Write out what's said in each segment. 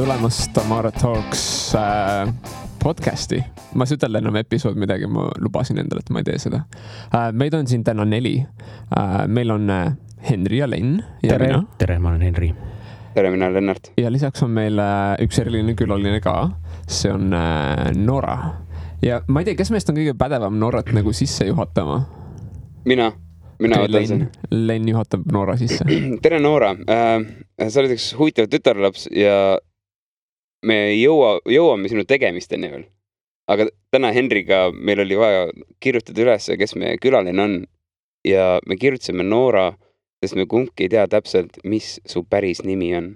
tulemast Tamara Talks podcasti. Ma ei ütelda enam episood midagi, ma lubasin endale, et ma ei tee seda. Meid on siin täna 4. Meil on Henri ja Len. Ja tere, ma olen Henri. Tere, mina olen Lennart. Ja lisaks on meil üks eriline külaline ka. See on Nora. Ja ma ei tea, kes meist on kõige pädevam Norat nagu sisse juhatama? Mina võtan sen. Len juhatab Nora sisse. Tere, Nora. Sa oled üks huvitav tütarlaps ja me jõuame sinu tegemisteni veel. Aga täna Henriga meil oli vaja kirjutada üles, kes meie külaline on. Ja me kirjutasime Nora, sest me kumbki ei tea täpselt, mis su päris nimi on.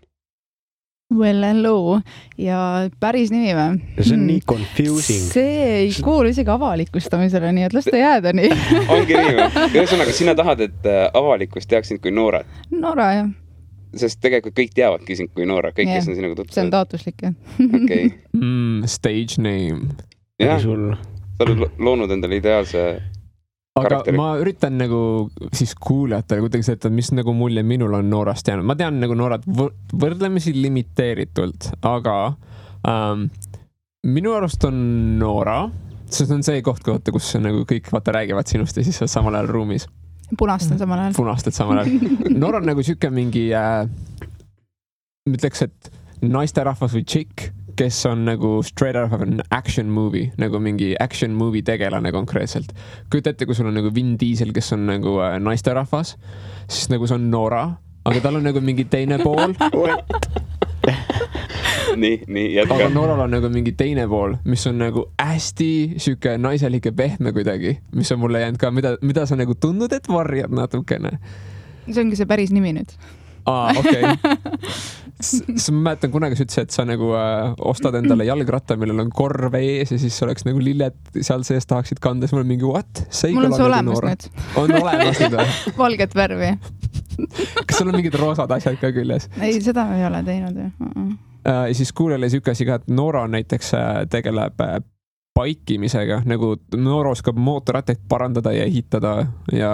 Well, hello. Ja päris nimi või? See on nii confusing. See ei kuulu isegi avalikustamisele, nii et las ta jääda nii. Ongi nii või? Ühesõnaga, sina tahad, et avalikkus teaks sind kui Noora? Nora, jah. Sest tegelikult kõik teavadki sind kui Noora. Kõik, kes on sinuga tutvunud. See on taotluslik, jah. Okei. Stage name. Jah, sa oled loonud endale ideaalse aga karakteri. Ma üritan nagu siis kuulajatele kuidagi seda, mis nagu mulje minul on Noorast jäänud. Ma tean nagu Noorat võrdlemisi limiteeritult, aga minu arust on Noora, sest on see koht, kus nagu kõik räägivad sinust ja siis on samal ajal ruumis. Punastad samal ajal. Punastad samal ajal. Noora on nagu siuke mingi ütleks, et naisterahvas või chick, kes on nagu straight out of an action movie, nagu mingi action movie tegelane konkreetselt. Kujuta ette, kui sul on nagu Vin Diesel, kes on nagu naisterahvas, siis nagu see on Noora, aga tal on nagu mingi teine pool. Nii, jätka. Aga Nooral on nagu mingi teine pool, mis on nagu hästi siuke naiselik ja pehme kuidagi, mis on mulle jäänud ka, mida sa nagu tundnud, et varjad natukene. See ongi see päris nimi nüüd. Okei. Ma mäletan kunagi sa ütlesid, et sa nagu ostad endale jalgratta, millel on korv ees ja siis oleks nagu lilled seal sees tahaksid kanda. Siis mul on mingi, what? Mul on see olemas nüüd. On olemas nüüd? Valget värvi. Kas sul on mingid roosad asjad ka küljes? Ei, seda ei ole teinud. Ja siis kuulele siuke asi ka, et Noora näiteks tegeleb paikimisega, nagu Noora oskab mootorrattaid parandada ja ehitada ja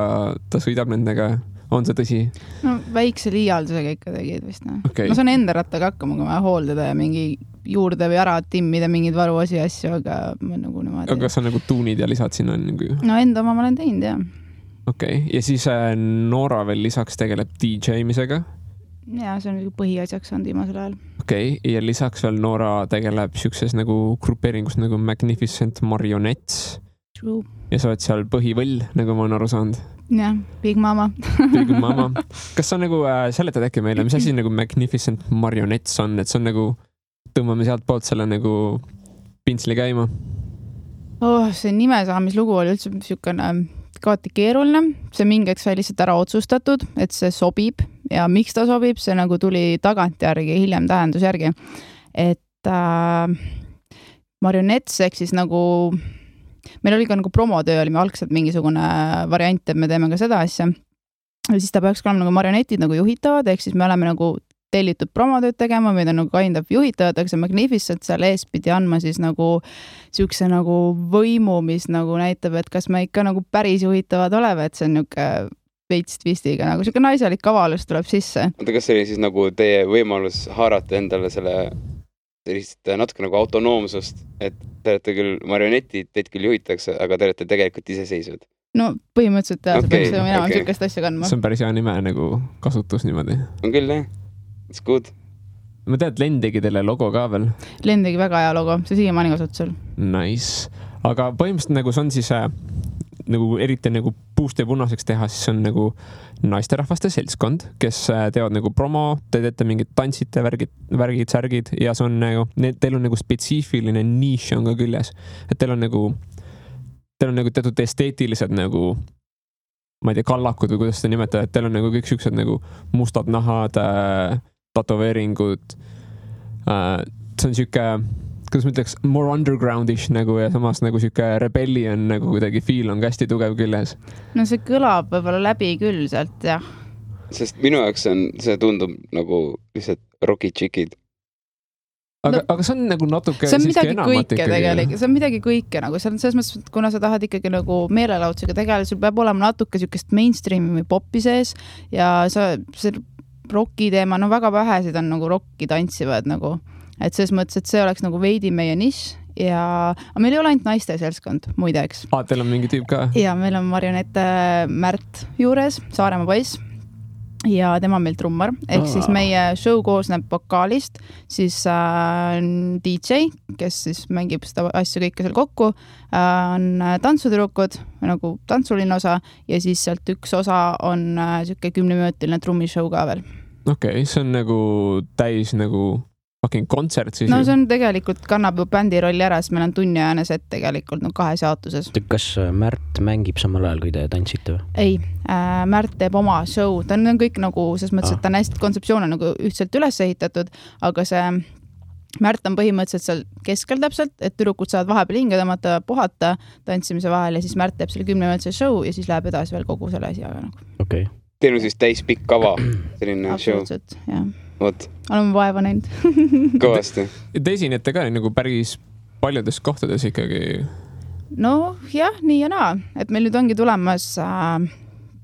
ta sõidab nendega. On see tõsi? No väikse liialdusega ikka tegid vist. Okay. Ma saan enda rattaga hakkama, kui ma hooldada ja mingi juurde või ära timmida mingid varuosi asju, aga ma nagu niimoodi. Aga sa nagu tuunid ja lisad sinna nagu? No enda oma ma olen teinud, jah. Okei. Ja siis Noora veel lisaks tegeleb DJ-misega? Ja, see on põhiasjaks on viimasel ajal. Okei. Ja lisaks veel Noora tegeleb siukses nagu grupeeringus nagu Magnificent Marionettes. True. Ja sa oled seal põhivõll, nagu ma olen aru saanud. Jah, Big Mama. Big Mama. Kas sa nagu seletad äkki meile, mis asi nagu Magnificent Marionettes on, et see on nagu, tõmbame sealt poolt selle nagu pintsli käima? See nimesaamislugu oli üldse siukene kaati keeruline. See mingeks sai lihtsalt ära otsustatud, et see sobib ja miks ta sobib, see nagu tuli tagantjärgi, hiljem tähendusjärgi. Et Marionettes ehk siis nagu meil oli ka nagu promotöö, oli me algselt mingisugune variant, et me teeme ka seda asja. Ja siis ta peaks olema nagu marionetid nagu juhitavad, ehk siis me oleme nagu tellitud promotööd tegema, meid on nagu kind of juhitavad, aga see Magnificent seal ees pidi andma siis nagu siukse nagu võimu, mis nagu näitab, et kas me ikka nagu päris juhitavad oleme, et see on niuke veits twistiga, nagu siuke naiselik kavalus tuleb sisse. Oota, kas see oli siis nagu teie võimalus haarata endale selle sellist natuke nagu autonoomsust, et te olete küll marionetid, teid küll juhitakse, aga te olete tegelikult iseseisvad? No põhimõtteliselt jah, see peaks minema siukest asja kandma. See on päris hea nime nagu kasutus niimoodi. On küll, jah. It's good. Ma tean, et Len tegi teile logo ka veel. Len tegi väga hea logo, see siiamaani kasutusel. Nice. Aga põhimõtteliselt nagu see on siis nagu eriti nagu puust ja punaseks teha, siis on nagu naisterahvaste seltskond, kes teevad nagu promo, te teete mingid tantsite, värgid, särgid ja see on nagu, teil on nagu spetsiifiline niche on ka küljes. Et teil on nagu teatud esteetilised nagu, ma ei tea, kallakud või kuidas seda nimetada, et teil on nagu kõik siuksed nagu mustad nahad, tatoveeringud. See on siuke kuidas ma ütleks, more undergroundish nagu ja samas nagu siuke rebellion nagu kuidagi feel on hästi tugev küljes. No see kõlab võib-olla läbi küll sealt, jah. Sest minu jaoks see tundub nagu lihtsalt rocky chickid. Aga see on nagu natuke see on midagi kõike tegelikult, see on midagi kõike nagu, see on selles mõttes, et kuna sa tahad ikkagi nagu meelelaudsega tegeleda, sul peab olema natuke siukest mainstreami või popi sees ja see rocki teema, no väga vähesid on nagu rocki tantsivad nagu et selles mõttes, et see oleks nagu veidi meie nišš ja meil ei ole ainult naiste seltskond, muideks. Teil on mingi tüüp ka? Ja meil on marionette Märt juures, Saaremaa poiss ja tema meil trummar, ehk siis meie show koosneb vokaalist, siis DJ, kes siis mängib seda asju kõike seal kokku, on tantsutüdrukud, nagu tantsuline osa ja siis sealt üks osa on siuke 10-minutiline trummishow ka veel. Okei, see on nagu täis nagu fucking kontsert siis. No see on tegelikult kannab ju bändi rolli ära, sest meil on tunniajane set tegelikult no 2 jaotuses. Kas Märt mängib samal ajal, kui te tantsite või? Ei, Märt teeb oma show, ta on kõik nagu, selles mõttes, et ta on hästi kontseptsioone nagu ühtselt üles ehitatud, aga see Märt on põhimõtteliselt seal keskel täpselt, et tüdrukud saavad vahepeal hinge tõmmata, puhata tantsimise vahel ja siis Märt teeb selle 10-minutise show ja siis läheb edasi veel kogu selle asjaga nagu. Okei. Teil on siis täis pikk kava, selline show. Absoluutselt, jah. Vot. Oleme vaeva näinud. Kõvasti. Te esinete ka nagu päris paljudes kohtades ikkagi? No jah, nii ja naa. Et meil nüüd ongi tulemas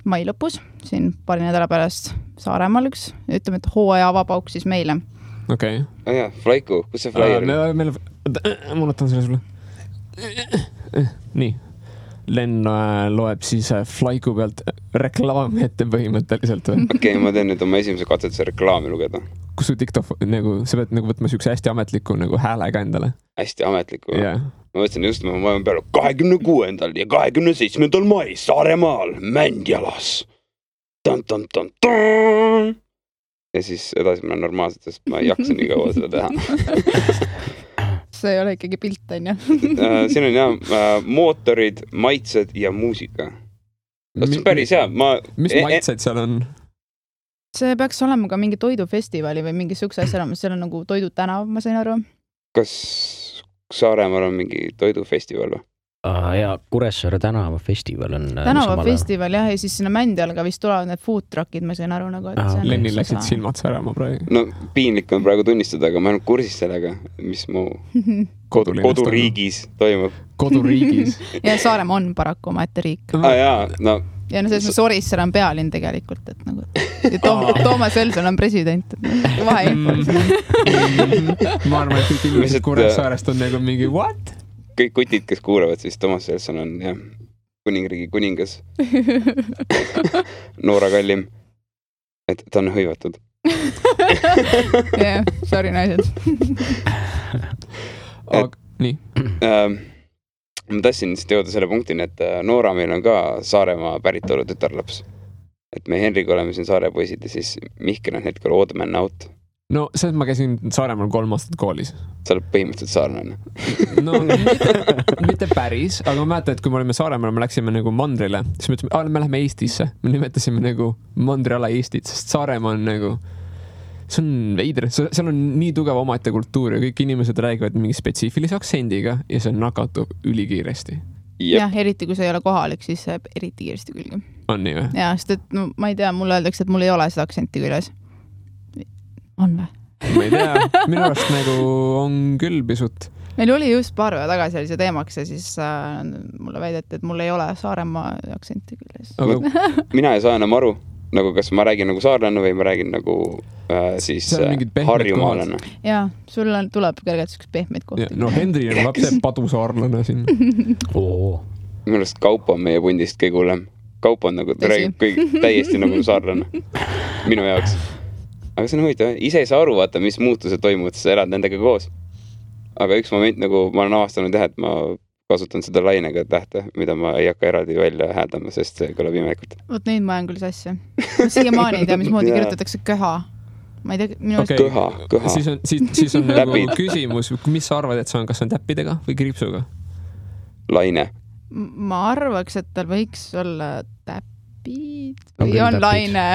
mai lõpus, siin paari nädala pärast Saaremaal üks. Ütleme, et hooaja avapauk siis meile. Okei. Jah, Flaiku, kus see flyer on? Ma võtan selle sulle. Nii. Len loeb siis Flaiku pealt reklaami ette põhimõtteliselt või? Okei, ma teen nüüd oma esimese katsetuse reklaami lugeda. Kus su TikTok, nagu, sa pead nagu võtma siukse hästi ametliku nagu häälega endale? Hästi ametliku. Yeah. Ma võtsin just, ma olen peale 26. ja 27. mai Saaremaal Mändjalas. Ja siis edasi ma olen normaalselt, sest ma ei jaksa nii kaua seda teha. See ei ole ikkagi pilt, on ju? Siin on jah mootorid, maitsed ja muusika. See on päris hea. Mis maitsed seal on? See peaks olema ka mingi toidufestivali või mingi sukse asja olemas. Seal on nagu toidutänav, ma sain aru. Kas Saaremaal on mingi toidufestival või? Ja Kuressaare tänavafestival on tänavafestival jah, ja siis sinna Mändjal ka vist tulevad need food truckid, ma sain aru nagu, et Lenni läksid silmad särama praegu. No piinlik on praegu tunnistada, aga ma olen kursis sellega, mis mu koduriigis toimub. Koduriigis? Ja Saaremaa on paraku omaette riik. Jaa, no ja no selles Orissaar on pealinn tegelikult, et nagu Toomas Elson on president, et vaheinfo. Ma arvan, et kõik inimesed Kuressaarest on nagu mingi what? Kõik kutid, kes kuulavad, siis Toomas Elson on jah, kuningriigi kuningas. Noora kallim. Et ta on hõivatud. Jah, sorry naised. Nii. Ma tassin siis jõuda selle punktini, et Noora meil on ka Saaremaa päritolu tütarlaps. Et me Henriga oleme siin Saare poisid ja siis Mihkel on hetkel old man out. No see, et ma käisin Saaremaal 3 aastat koolis. Sa oled põhimõtteliselt saarlane. No mitte päris, aga ma mäletan, et kui me olime Saaremaal, me läksime nagu mandrile, siis me ütlesime, me läheme Eestisse. Me nimetasime nagu mandriala Eestit, sest Saaremaa on nagu, see on veidre, seal on nii tugev omaette kultuur ja kõik inimesed räägivad mingi spetsiifilise aktsendiga ja see nakatub ülikiiresti. Jah, eriti kui see ei ole kohalik, siis see eriti kiiresti külge. On nii või? Ja, sest et no, ma ei tea, mulle öeldakse, et mul ei ole seda aktsenti küljes. On või? Ma ei tea, minu arust nagu on küll pisut. Meil oli just paar päeva tagasi oli see teemaks ja siis mulle väideti, et mul ei ole Saaremaa aktsenti küljes. Mina ei saa enam aru, nagu kas ma räägin nagu saarlane või ma räägin nagu siis harjumaalane. Jaa, sul tuleb kergelt üks pehmeid kohti. No Henri on lapse padusaarlane siin. Minu arust Kaupo on meie pundist kõige hullem. Kaupo on nagu täiesti nagu saarlane. Minu jaoks. Aga see on huvitav, ise ei saa aru vaata, mis muutused toimuvad, sa elad nendega koos. Aga üks moment nagu ma olen avastanud jah, et ma kasutan seda lainega tähte, mida ma ei hakka eraldi välja hääldama, sest see kõlab imekult. Vot neid ma olen küll sassi. Siiamaani ei tea, mismoodi kirjutatakse köha. Ma ei tea, minu okay. Köha. Siis on nagu küsimus, mis sa arvad, et see on, kas on täppidega või kriipsuga? Laine. Ma arvaks, et tal võiks olla täppid või on laine.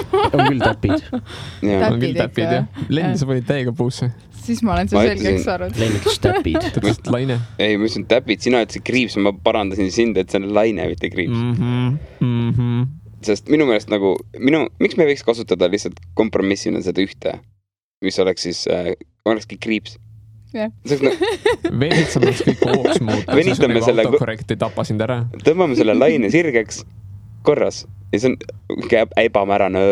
On küll täpid. On küll täpid, jah. Lenn, sa panid täiega puusse. Siis ma olen see selgeks arvanud. Lenn ütles täpid. Ta ütles laine. Ei, ma ütlesin täpid, sina ütlesid kriips, ma parandasin sind, et see on laine, mitte kriips. Sest minu meelest nagu, miks me võiks kasutada lihtsalt kompromissina seda ühte, mis oleks siis, olekski kriips. Venitsamaks kõik hooks muuta, siis on nagu autokorrekt ei tapa sind ära. Tõmbame selle laine sirgeks korras ja see on ebamärane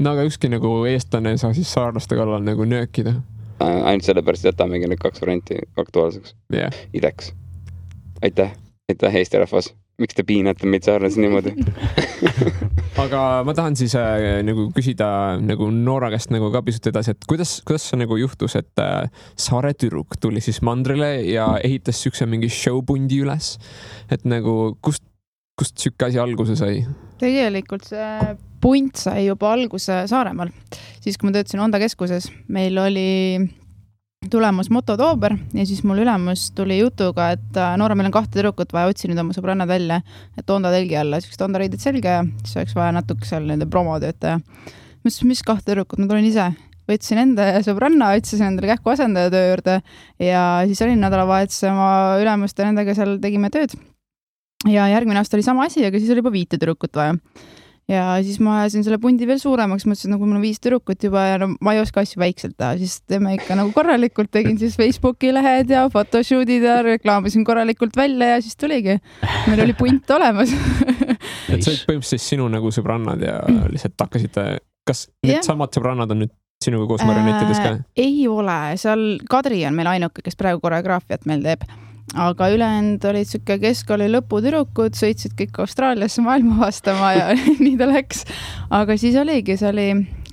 no aga ükski nagu eestlane ei saa siis saarlaste kallal nagu nöökida. Ainult sellepärast jätamegi need 2 varianti aktuaalseks. Yeah. Ideks. Aitäh Eesti rahvas. Miks te piinate meid saarlasi niimoodi? Aga ma tahan siis nagu küsida nagu Noora käest nagu ka pisut edasi, et kuidas see nagu juhtus, et saare tüdruk tuli siis mandrile ja ehitas sükse mingi showpundi üles, et nagu kust sükke asi alguse sai? Tegelikult see punt sai juba alguse Saaremaal. Siis kui ma töötasin Onda keskuses, meil oli tulemas mototoober ja siis mul ülemus tuli jutuga, et Noora, meil on 2 tüdrukut vaja, otsi nüüd oma sõbrannad välja, et Onda telgi alla, siis Onda riided selga ja siis oleks vaja natuke seal nende promotöötaja. Mis 2 tüdrukut, ma tulin ise. Võtsin enda sõbranna, otsisin endale kähku asendaja töö juurde ja siis olin nädalavahetuse oma ülemust ja nendega seal tegime tööd. Ja järgmine aasta oli sama asi, aga siis oli juba 5 tüdrukut vaja. Ja siis ma ajasin selle pundi veel suuremaks, mõtlesin, nagu mul on 5 tüdrukut juba ja no, ma ei oska asju väikselt teha, siis teeme ikka nagu korralikult, tegin siis Facebooki lehed ja photoshootid ja reklaamisin korralikult välja ja siis tuligi. Meil oli punt olemas. Et see oli põhimõtteliselt sinu nagu sõbrannad ja lihtsalt hakkasite, kas need samad sõbrannad on nüüd sinuga koos marionettides ka? Ei ole, seal Kadri on meil ainuke, kes praegu koreograafiat meil teeb. Aga ülejäänud olid siuke keskkooli lõputüdrukud, sõitsid kõik Austraaliasse maailma vastama ja nii ta läks. Aga siis oligi, see oli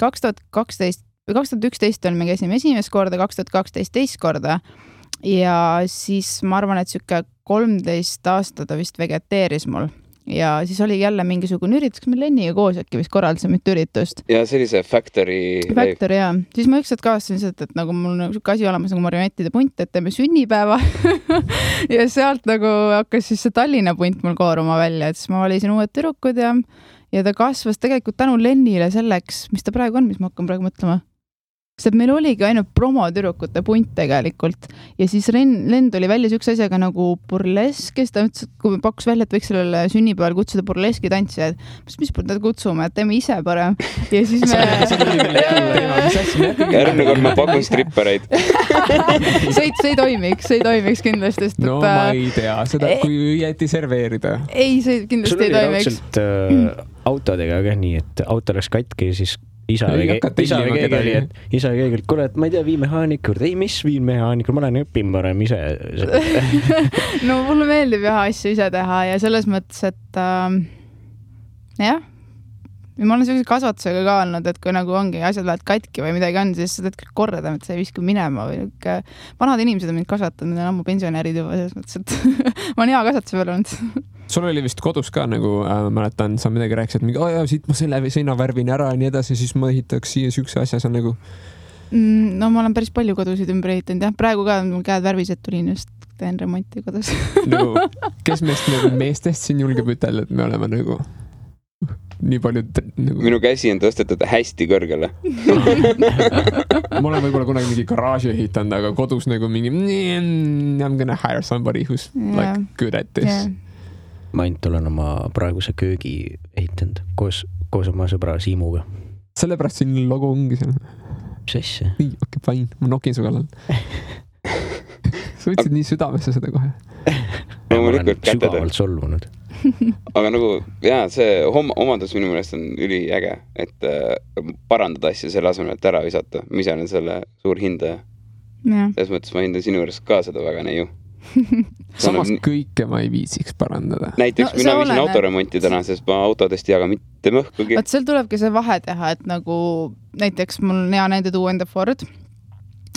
2011 oli me käisime esimest korda, 2012 teist korda ja siis ma arvan, et siuke 13 aastat ta vist vegeteeris mul. Ja siis oli jälle mingisugune üritus, me Lenniga koos äkki vist korraldasime mitu üritust. Ja see oli see Factory, jaa. Siis ma ükskord kaastasin seda, et nagu mul on siuke asi olemas nagu marionettide punt, et teeme sünnipäeva ja sealt nagu hakkas siis see Tallinna punt mul kooruma välja, et siis ma valisin uued tüdrukud ja ta kasvas tegelikult tänu Lennile selleks, mis ta praegu on, mis ma hakkan praegu mõtlema. Sest meil oligi ainult promotüdrukute punt tegelikult ja siis Len tuli välja siukse asjaga nagu burlesk, kes ta ütles, et kui me pakkus välja, et võiks sellele sünnipäeval kutsuda burleski tantsijad, mis me kutsume, et teeme ise parem ja siis me järgmine kord ma pakun strippereid. see ei toimiks kindlasti. No ma ei tea seda, kui õieti serveerida. Ei, see kindlasti ei toimiks. Sul oli raudselt autodega ka nii, et auto läks katki ja siis isa või keegi, kuule, et ma ei tea, vii mehaanik juurde. Ei, mis vii mehaanik, ma olen õppin parem ise. No mulle meeldib jah asju ise teha ja selles mõttes, et jah, ma olen sellise kasvatusega ka olnud, et kui nagu ongi asjad lähevad katki või midagi on, siis sa teed kõik korda, et sa ei viska minema või vanad inimesed on mind kasvatanud, need on ammu pensionärid juba selles mõttes, et ma olen hea kasvatuse peal olnud. Sul oli vist kodus ka nagu, mäletan, sa midagi rääkisid, et siit ma selle seina värvin ära ja nii edasi, siis ma ehitaks siia sükse asja, see on nagu... No ma olen päris palju kodusid ümber ehitanud, jah. Praegu ka mul käed värvised tulin just, teen remonti kodus. Nagu, kes meestest siin julgeb ütelda, et me oleme nagu... nii palju nagu... Minu käsi on tõstetud hästi kõrgele. Ma olen võib-olla kunagi mingi garaaži ehitanud, aga kodus nagu mingi I'm gonna hire somebody who's like good at this. Ma ainult olen oma praeguse köögi ehitanud koos oma sõbra Siimuga. Sellepärast siin logo ongi seal. Mis asja? Nii, okei, fine. Ma nokin su kallal. Sa võtsid nii südamesse seda kohe. Ma olen sügavalt solvunud. Aga nagu, jaa, see omadus minu meelest on üliäge, et parandada asja selle asemel, et ära visata. Ma ise olen selle suur hindaja. Selles mõttes ma hindan sinu juures ka seda väga neiu. Samas kõike ma ei viisiks parandada. Näiteks mina viisin autoremonti täna, sest ma autodest ei jaga mitte mõhkugi. Vaat seal tulebki see vahe teha, et nagu näiteks mul on hea näide tuua enda Ford.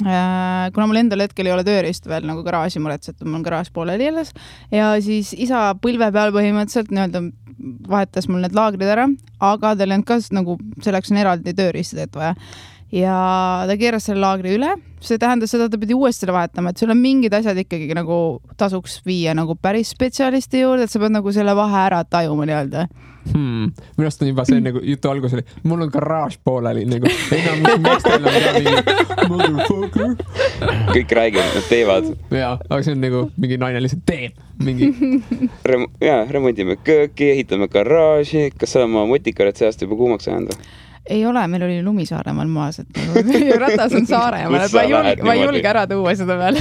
Kuna mul endal hetkel ei ole tööriist veel nagu garaaži muretset, mul on garaaž pooleli jäles ja siis isa põlve peal põhimõtteliselt nii-öelda vahetas mul need laagrid ära, aga tal on ka nagu selleks on eraldi tööriistad, et vaja. Ja ta keeras selle laagri üle, see tähendas seda, et ta pidi uuesti selle vahetama, et sul on mingid asjad ikkagi nagu tasuks viia nagu päris spetsialisti juurde, et sa pead nagu selle vahe ära tajuma nii-öelda. Minust on juba see nagu jutu algus oli, mul on garaaž pooleli nagu, enam meestel on ka mingi motherfucker. Kõik räägivad, nad teevad. Jaa, aga see on nagu mingi naine lihtsalt teeb mingi. Remondime kööki, ehitame garaaži, kas sa oma motikaret seast juba kuumaks ajanda? Ei ole, meil oli lumi Saaremaal maas, et ratas on Saaremaal, et ma ei julge ära tuua seda peale.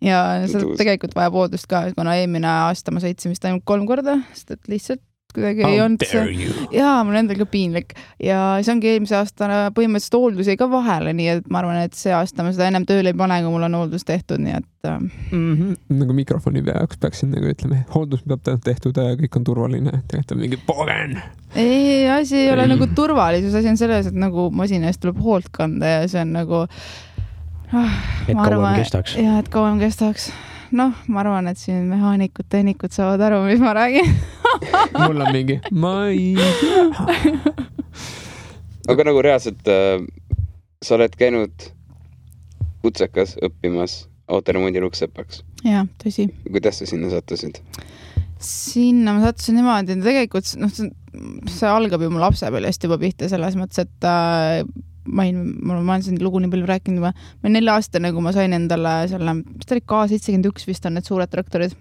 Ja seda tegelikult vaja poodust ka, kuna eelmine aasta ma sõitsin vist ainult 3 korda, sest et lihtsalt kuidagi ei olnud see. Jaa, mul endal ka piinlik. Ja see ongi eelmise aasta põhimõtteliselt hooldus jäi ka vahele, nii et ma arvan, et see aasta ma seda ennem tööle ei pane, kui mul on hooldus tehtud, nii et... Nagu mikrofoni peaks peaksin nagu ütleme, hooldus peab tehtud, kõik on turvaline, tegelikult on mingi pogen. Ei, asi ei ole nagu turvalisus, asi on selles, et nagu masina eest tuleb hoolt kanda ja see on nagu... et kauem kestaks. Jaa, et kauem kestaks. Noh, ma arvan, et siin mehaanikud, tehnikud saavad aru, mis ma räägin. Mul on mingi, ma ei tea. Aga nagu reaalselt sa oled käinud kutsekas õppimas autoremondi luksepaks. Jaa, tõsi. Kuidas sa sinna sattusid? Sinna ma sattusin niimoodi, tegelikult see algab ju mu lapsepõlvest juba pihta selles mõttes, et ma olen siin lugu nii palju rääkinud juba. Ma 4 aastane, kui ma sain endale selle, mis ta oli K71 vist on need suured traktorid.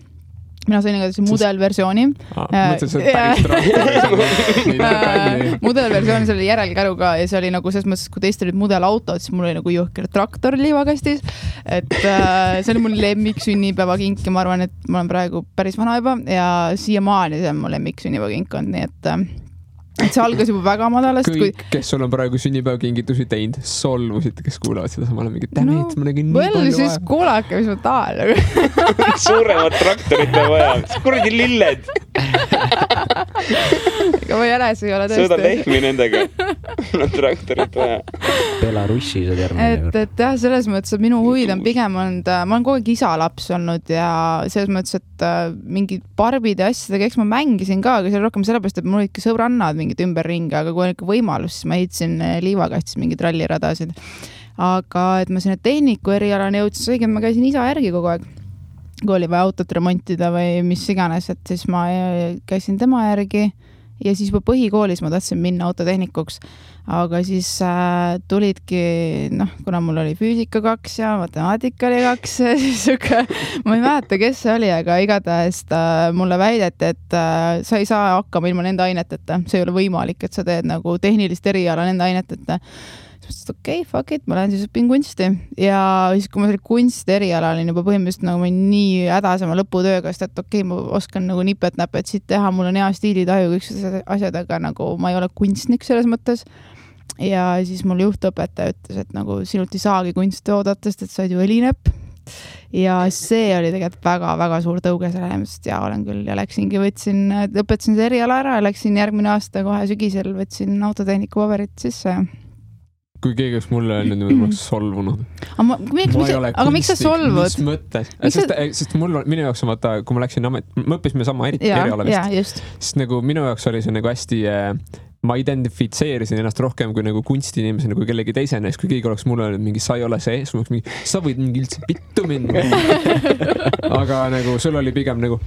Mina sain igatahes mudelversiooni. Mõtlesin, see päris traktori. Mudelversiooni selle järelkäruga ja see oli nagu selles mõttes, kui teist olid mudelautod, siis mul oli nagu jõhker traktor liivakastis. Et see oli mul lemmik sünnipäevakink ja ma arvan, et ma olen praegu päris vana juba ja siiamaani see on mu lemmik sünnipäevakink on, nii et see algas juba väga madalast. Kõik, kes sul on praegu sünnipäevakingitusi teinud, solvusid, kes kuulavad seda samale mingi tämit, ma nägin nii palju vaja. Siis kuulake, mis ma tahan. Suuremad traktorid vaja. Kuradi lilled. Ega ma jäles ei ole tõesti. Sõda lehmi nendega. Traktorid vaja. Belarussi see termin. Et jah, selles mõttes, et minu huvid on pigem olnud, ma olen kogu aeg isalaps olnud ja selles mõttes, et mingi barbide asjadega, eks ma mängisin ka, aga see oli rohkem sellepärast, et mul olid ka sõbrannad mingid ümberringi, aga kui on ikka võimalus, siis ma ehitasin liivakastis mingid ralliradasid. Aga et ma sinna tehniku erialane jõudsin, õige, ma käisin isa järgi kogu aeg. Kui oli vaja autot remontida või mis iganes, et siis ma käisin tema järgi ja siis juba põhikoolis ma tahtsin minna autotehnikuks. Aga siis tulidki, kuna mul oli füüsika 2 ja matemaatika oli 2, siis ma ei mäleta, kes see oli, aga igatahes mulle väideti, et sa ei saa hakkama ilma nende aineteta. See ei ole võimalik, et sa teed nagu tehnilist eriala nende aineteta. Siis mõtlesin, okei, fuck it, ma lähen siis õpin kunsti. Ja siis, kui ma selle kunsti eriala olin juba põhimõtteliselt nagu ma nii hädasema lõputööga, sest et okei, ma oskan nagu nipet-näpet siit teha, mul on hea stiilitaju, kõik asjad, aga nagu ma ei ole kunstnik selles mõttes. Ja siis mul juhtõpetaja ütles, et nagu sinult ei saagi kunsti oodata, sest et sa oled ju õlinepp. Ja see oli tegelikult väga-väga suur tõuge selle, sest ja olen küll ja läksingi, õpetasin see eriala ära ja läksin järgmine aasta kohe sügisel, võtsin autotehniku paberit sisse. Kui keegi oleks mulle öelnud, ma oleks solvunud. Aga miks sa solvud? Mis mõttes? Sest minu jaoks on vaata, kui ma läksin me õppisime sama eriala vist. Sest nagu minu jaoks oli see nagu hästi... Ma identifitseerisin ennast rohkem kui nagu kunstiinimesena kui kellegi teisena, kui keegi oleks mulle öelnud mingi, sa ei ole see, sa võid mingi üldse pittu minna. Aga nagu sul oli pigem nagu,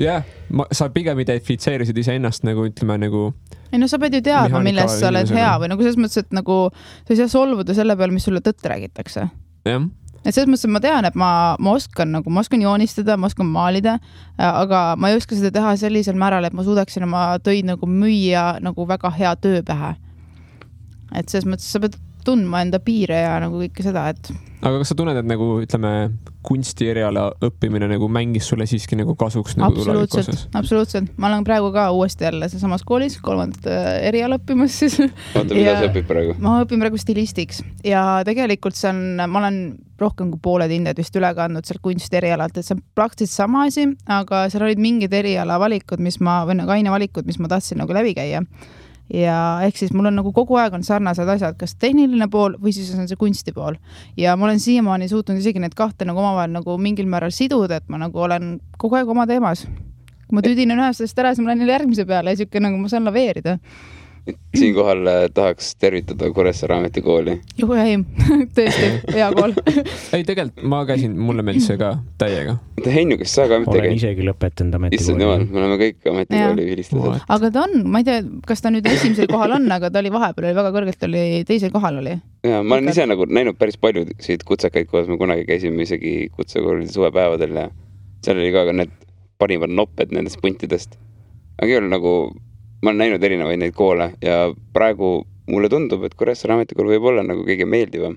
sa pigem identifitseerisid ise ennast nagu ütleme nagu... Ei sa pead ju teadma, millest sa oled hea või nagu selles mõttes, et nagu sa ei saa solvuda selle peal, mis sulle tõtt räägitakse. Jah. Et selles mõttes, et ma tean, et ma oskan joonistada, ma oskan maalida, aga ma ei oska seda teha sellisel määral, et ma suudaksin oma töid nagu müüa nagu väga hea töö pähe. Et selles mõttes sa pead tundma enda piire ja nagu kõike seda, et... Aga kas sa tunned, et nagu, ütleme, kunsti eriala õppimine nagu mängis sulle siiski nagu kasuks nagu Absoluutselt. Ma olen praegu ka uuesti jälle samas koolis, 3. eriala õppimas siis. Oota, mida sa õpid praegu? Ma õpin praegu stilistiks ja tegelikult ma olen rohkem kui pooled hinded vist üle kandnud seal kunsti erialalt, et see on praktiliselt sama asi, aga seal olid mingid eriala valikud, või nagu ainevalikud, mis ma tahtsin nagu läbi käia. Ja ehk siis mul on nagu kogu aeg on sarnased asjad, kas tehniline pool või siis on see kunsti pool. Ja ma olen siiamaani suutnud isegi need kahte nagu omavahel nagu mingil määral siduda, et ma nagu olen kogu aeg oma teemas. Kui ma tüdinen ühest ära, siis ma lähen järgmise peale ja siuke nagu ma saan laveerida. Siinkohal tahaks tervitada Kuressaare ametikooli. Juhu ei, tõesti, hea kool. Ei, tegelikult ma käisin, mulle meeldis see ka täiega. Heinu, kes sa ka ametikooli? Olen isegi lõpetanud ametikooli. Me oleme kõik ametikooli vilistused. Aga ta on, ma ei tea, kas ta nüüd esimesel kohal on, aga ta oli vahepeal, väga kõrgelt oli, teisel kohal oli. Ja, ma olen ise nagu näinud päris palju siit kutsekaid, kuidas me kunagi käisime isegi kutsekoolide suvepäevadel ja seal oli ka need parimad nopped nendest puntidest. Aga ei ole nagu... Ma olen näinud erinevaid neid koole ja praegu mulle tundub, et Kuressaare ametikool võib olla nagu kõige meeldivam.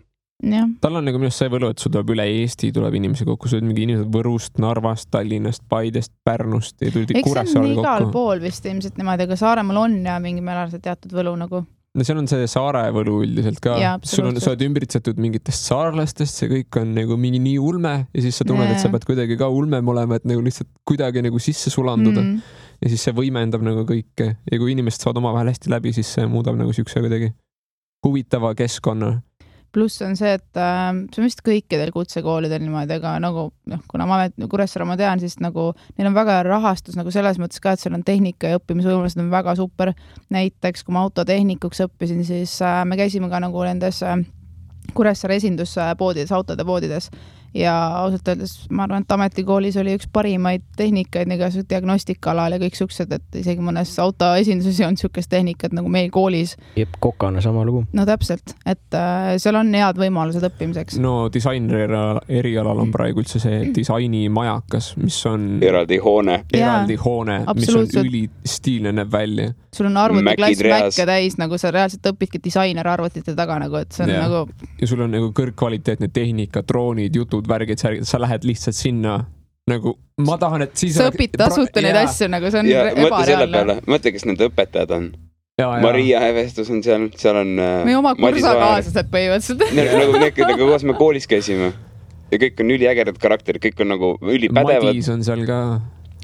tal on nagu minu see võlu, et sul tuleb üle Eesti, tuleb inimesi kokku, sul mingi inimesed Võrust, Narvast, Tallinnast, Paidest, Pärnust ja tulid Kuressaarel kokku. Igal pool vist ilmselt niimoodi, aga Saaremaal on ja mingi määral see teatud võlu nagu. No seal on see saare võlu üldiselt ka. Sa oled ümbritsetud mingitest saarlastest, see kõik on nagu mingi nii ulme ja siis sa tunned, et sa pead kuidagi ka ulmem olema, et nagu lihtsalt kuidagi nagu sisse sulanduda. Ja siis see võimendab nagu kõike ja kui inimesed saavad omavahel hästi läbi, siis see muudab nagu siukse kuidagi huvitava keskkonna. Pluss on see, et see on vist kõikidel kutsekoolidel niimoodi, aga nagu, kuna ma Kuressaare ma tean, siis nagu neil on väga rahastus nagu selles mõttes ka, et seal on tehnika ja õppimisvõimalused on väga super. Näiteks, kui ma autotehnikuks õppisin, siis me käisime ka nagu nendes Kuressaare esinduspoodides, autode poodides ja ausalt öeldes ma arvan, et ametikoolis oli üks parimaid tehnikaid nagu diagnostikaalal ja kõik suksed, et isegi mõnes autoesinduses on niisugust tehnikat nagu meil koolis. Jep, kokana sama lugu. No täpselt, et seal on head võimalused õppimiseks. No disaineri erialal on praegu üldse see disainimajakas, mis on eraldi hoone, mis on ülistiilne näeb välja. Sul on arvutiklass Mäkke täis, nagu sa reaalselt õpidki disainer arvutite taga, nagu, et see on nagu... Ja sul on nagu kõrgkvaliteetne tehnika, droonid, jutud, värgid, sa lähed lihtsalt sinna nagu, ma tahan, et siis... Sa õpid tasuta neid asju, nagu see on ebareaalne. Mõtle, kes nende õpetajad on. Maria Hevestus on seal on... Meie oma kursakaaslased põhimõtteliselt. Nagu koos me koolis käisime. Ja kõik on üliägedad karakterid, kõik on nagu ülipädevad. Madis on seal ka.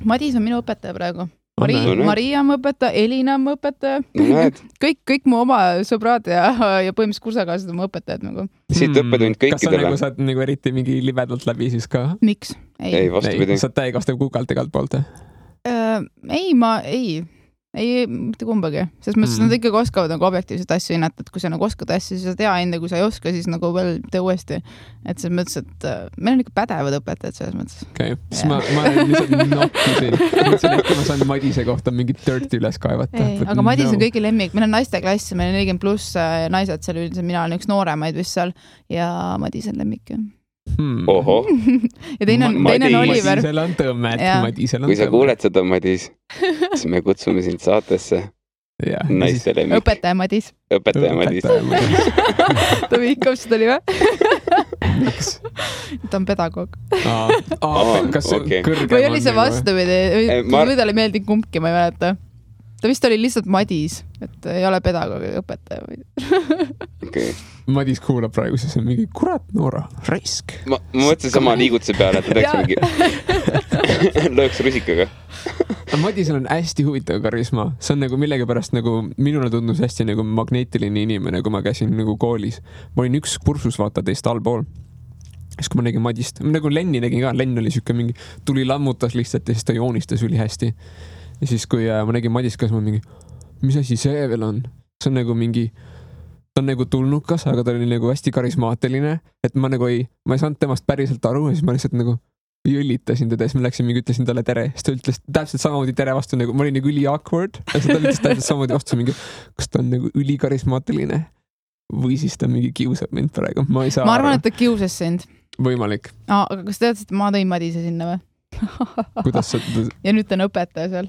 Madis on minu õpetaja praegu. Maria on õpetaja, Elina on õpetaja. Kõik mu oma sõbrad ja põhimõtteliselt kursakaaslased on õpetajad nagu. Siit õppetund kõikidele. Kas sa saad nagu eriti mingi libedalt läbi siis ka? Miks? Ei, vastupidi. Saad täiekastev kukalt igalt poolt? Ei, mitte kumbagi. Sest mõttes nad ikkagi oskavad nagu objektiivset asju hinnata, et kui sa nagu oskad asju, siis sa tea enda, kui sa ei oska, siis nagu veel tee uuesti. Et selles mõttes, et meil on ikka pädevad õpetajad selles mõttes. Okei, siis ma lihtsalt nokkisin. Ma saan Madise kohta mingit dirty üles kaevata. Aga Madis on kõigi lemmik. Meil on naiste klass, meil on 40 pluss naised seal üldiselt. Mina olen üks nooremaid vist seal ja Madis on lemmik. Oho. Ja teine on Oliver. Madisel on tõmmet. Kui sa kuuled seda, Madis, siis me kutsume sind saatesse naiste lemmik. Õpetaja Madis. Ta vihkab seda oli või? Ta on pedagoog. Kas kõrgem või oli see vastupidi? Või talle ei meeldi kumbki, ma ei mäleta. Ta vist oli lihtsalt Madis, et ei ole pedagoogi õpetaja. Okay. Madis kuulab praegu, siis on mingi kurat Noora, raisk. Ma mõtlesin sama liigutuse peale, et ta teeks mingi lööks rusikaga. Madisel on hästi huvitav karisma. See on nagu millegipärast nagu minule tundus hästi nagu magneetiline inimene, kui ma käisin nagu koolis. Ma olin üks kursus vaata teist allpool. Siis kui ma nägin Madist, nagu Lenni nägin ka, Lenn oli siuke mingi, tuli lammutas lihtsalt ja siis ta joonistas üli hästi. Ja siis kui ma nägin Madist, kas ma mingi, mis asi see veel on? See on nagu mingi, ta on nagu tulnukas, aga ta oli nagu hästi karismaatiline, et ma ei saanud temast päriselt aru ja siis ma lihtsalt nagu jõllitasin teda ja siis ma läksin mingi, ütlesin talle tere. Siis ta ütles täpselt samamoodi tere vastu, nagu ma olin nagu üli awkward ja siis ta ütles täpselt samamoodi vastu mingi, kas ta on nagu üli karismaatiline või siis ta mingi kiusab mind praegu. Ma arvan, et ta kiusas sind. Võimalik. Aga kas tead, et ma tõin Madise sinna või? Kuidas sa... Ja nüüd ta on õpetaja seal.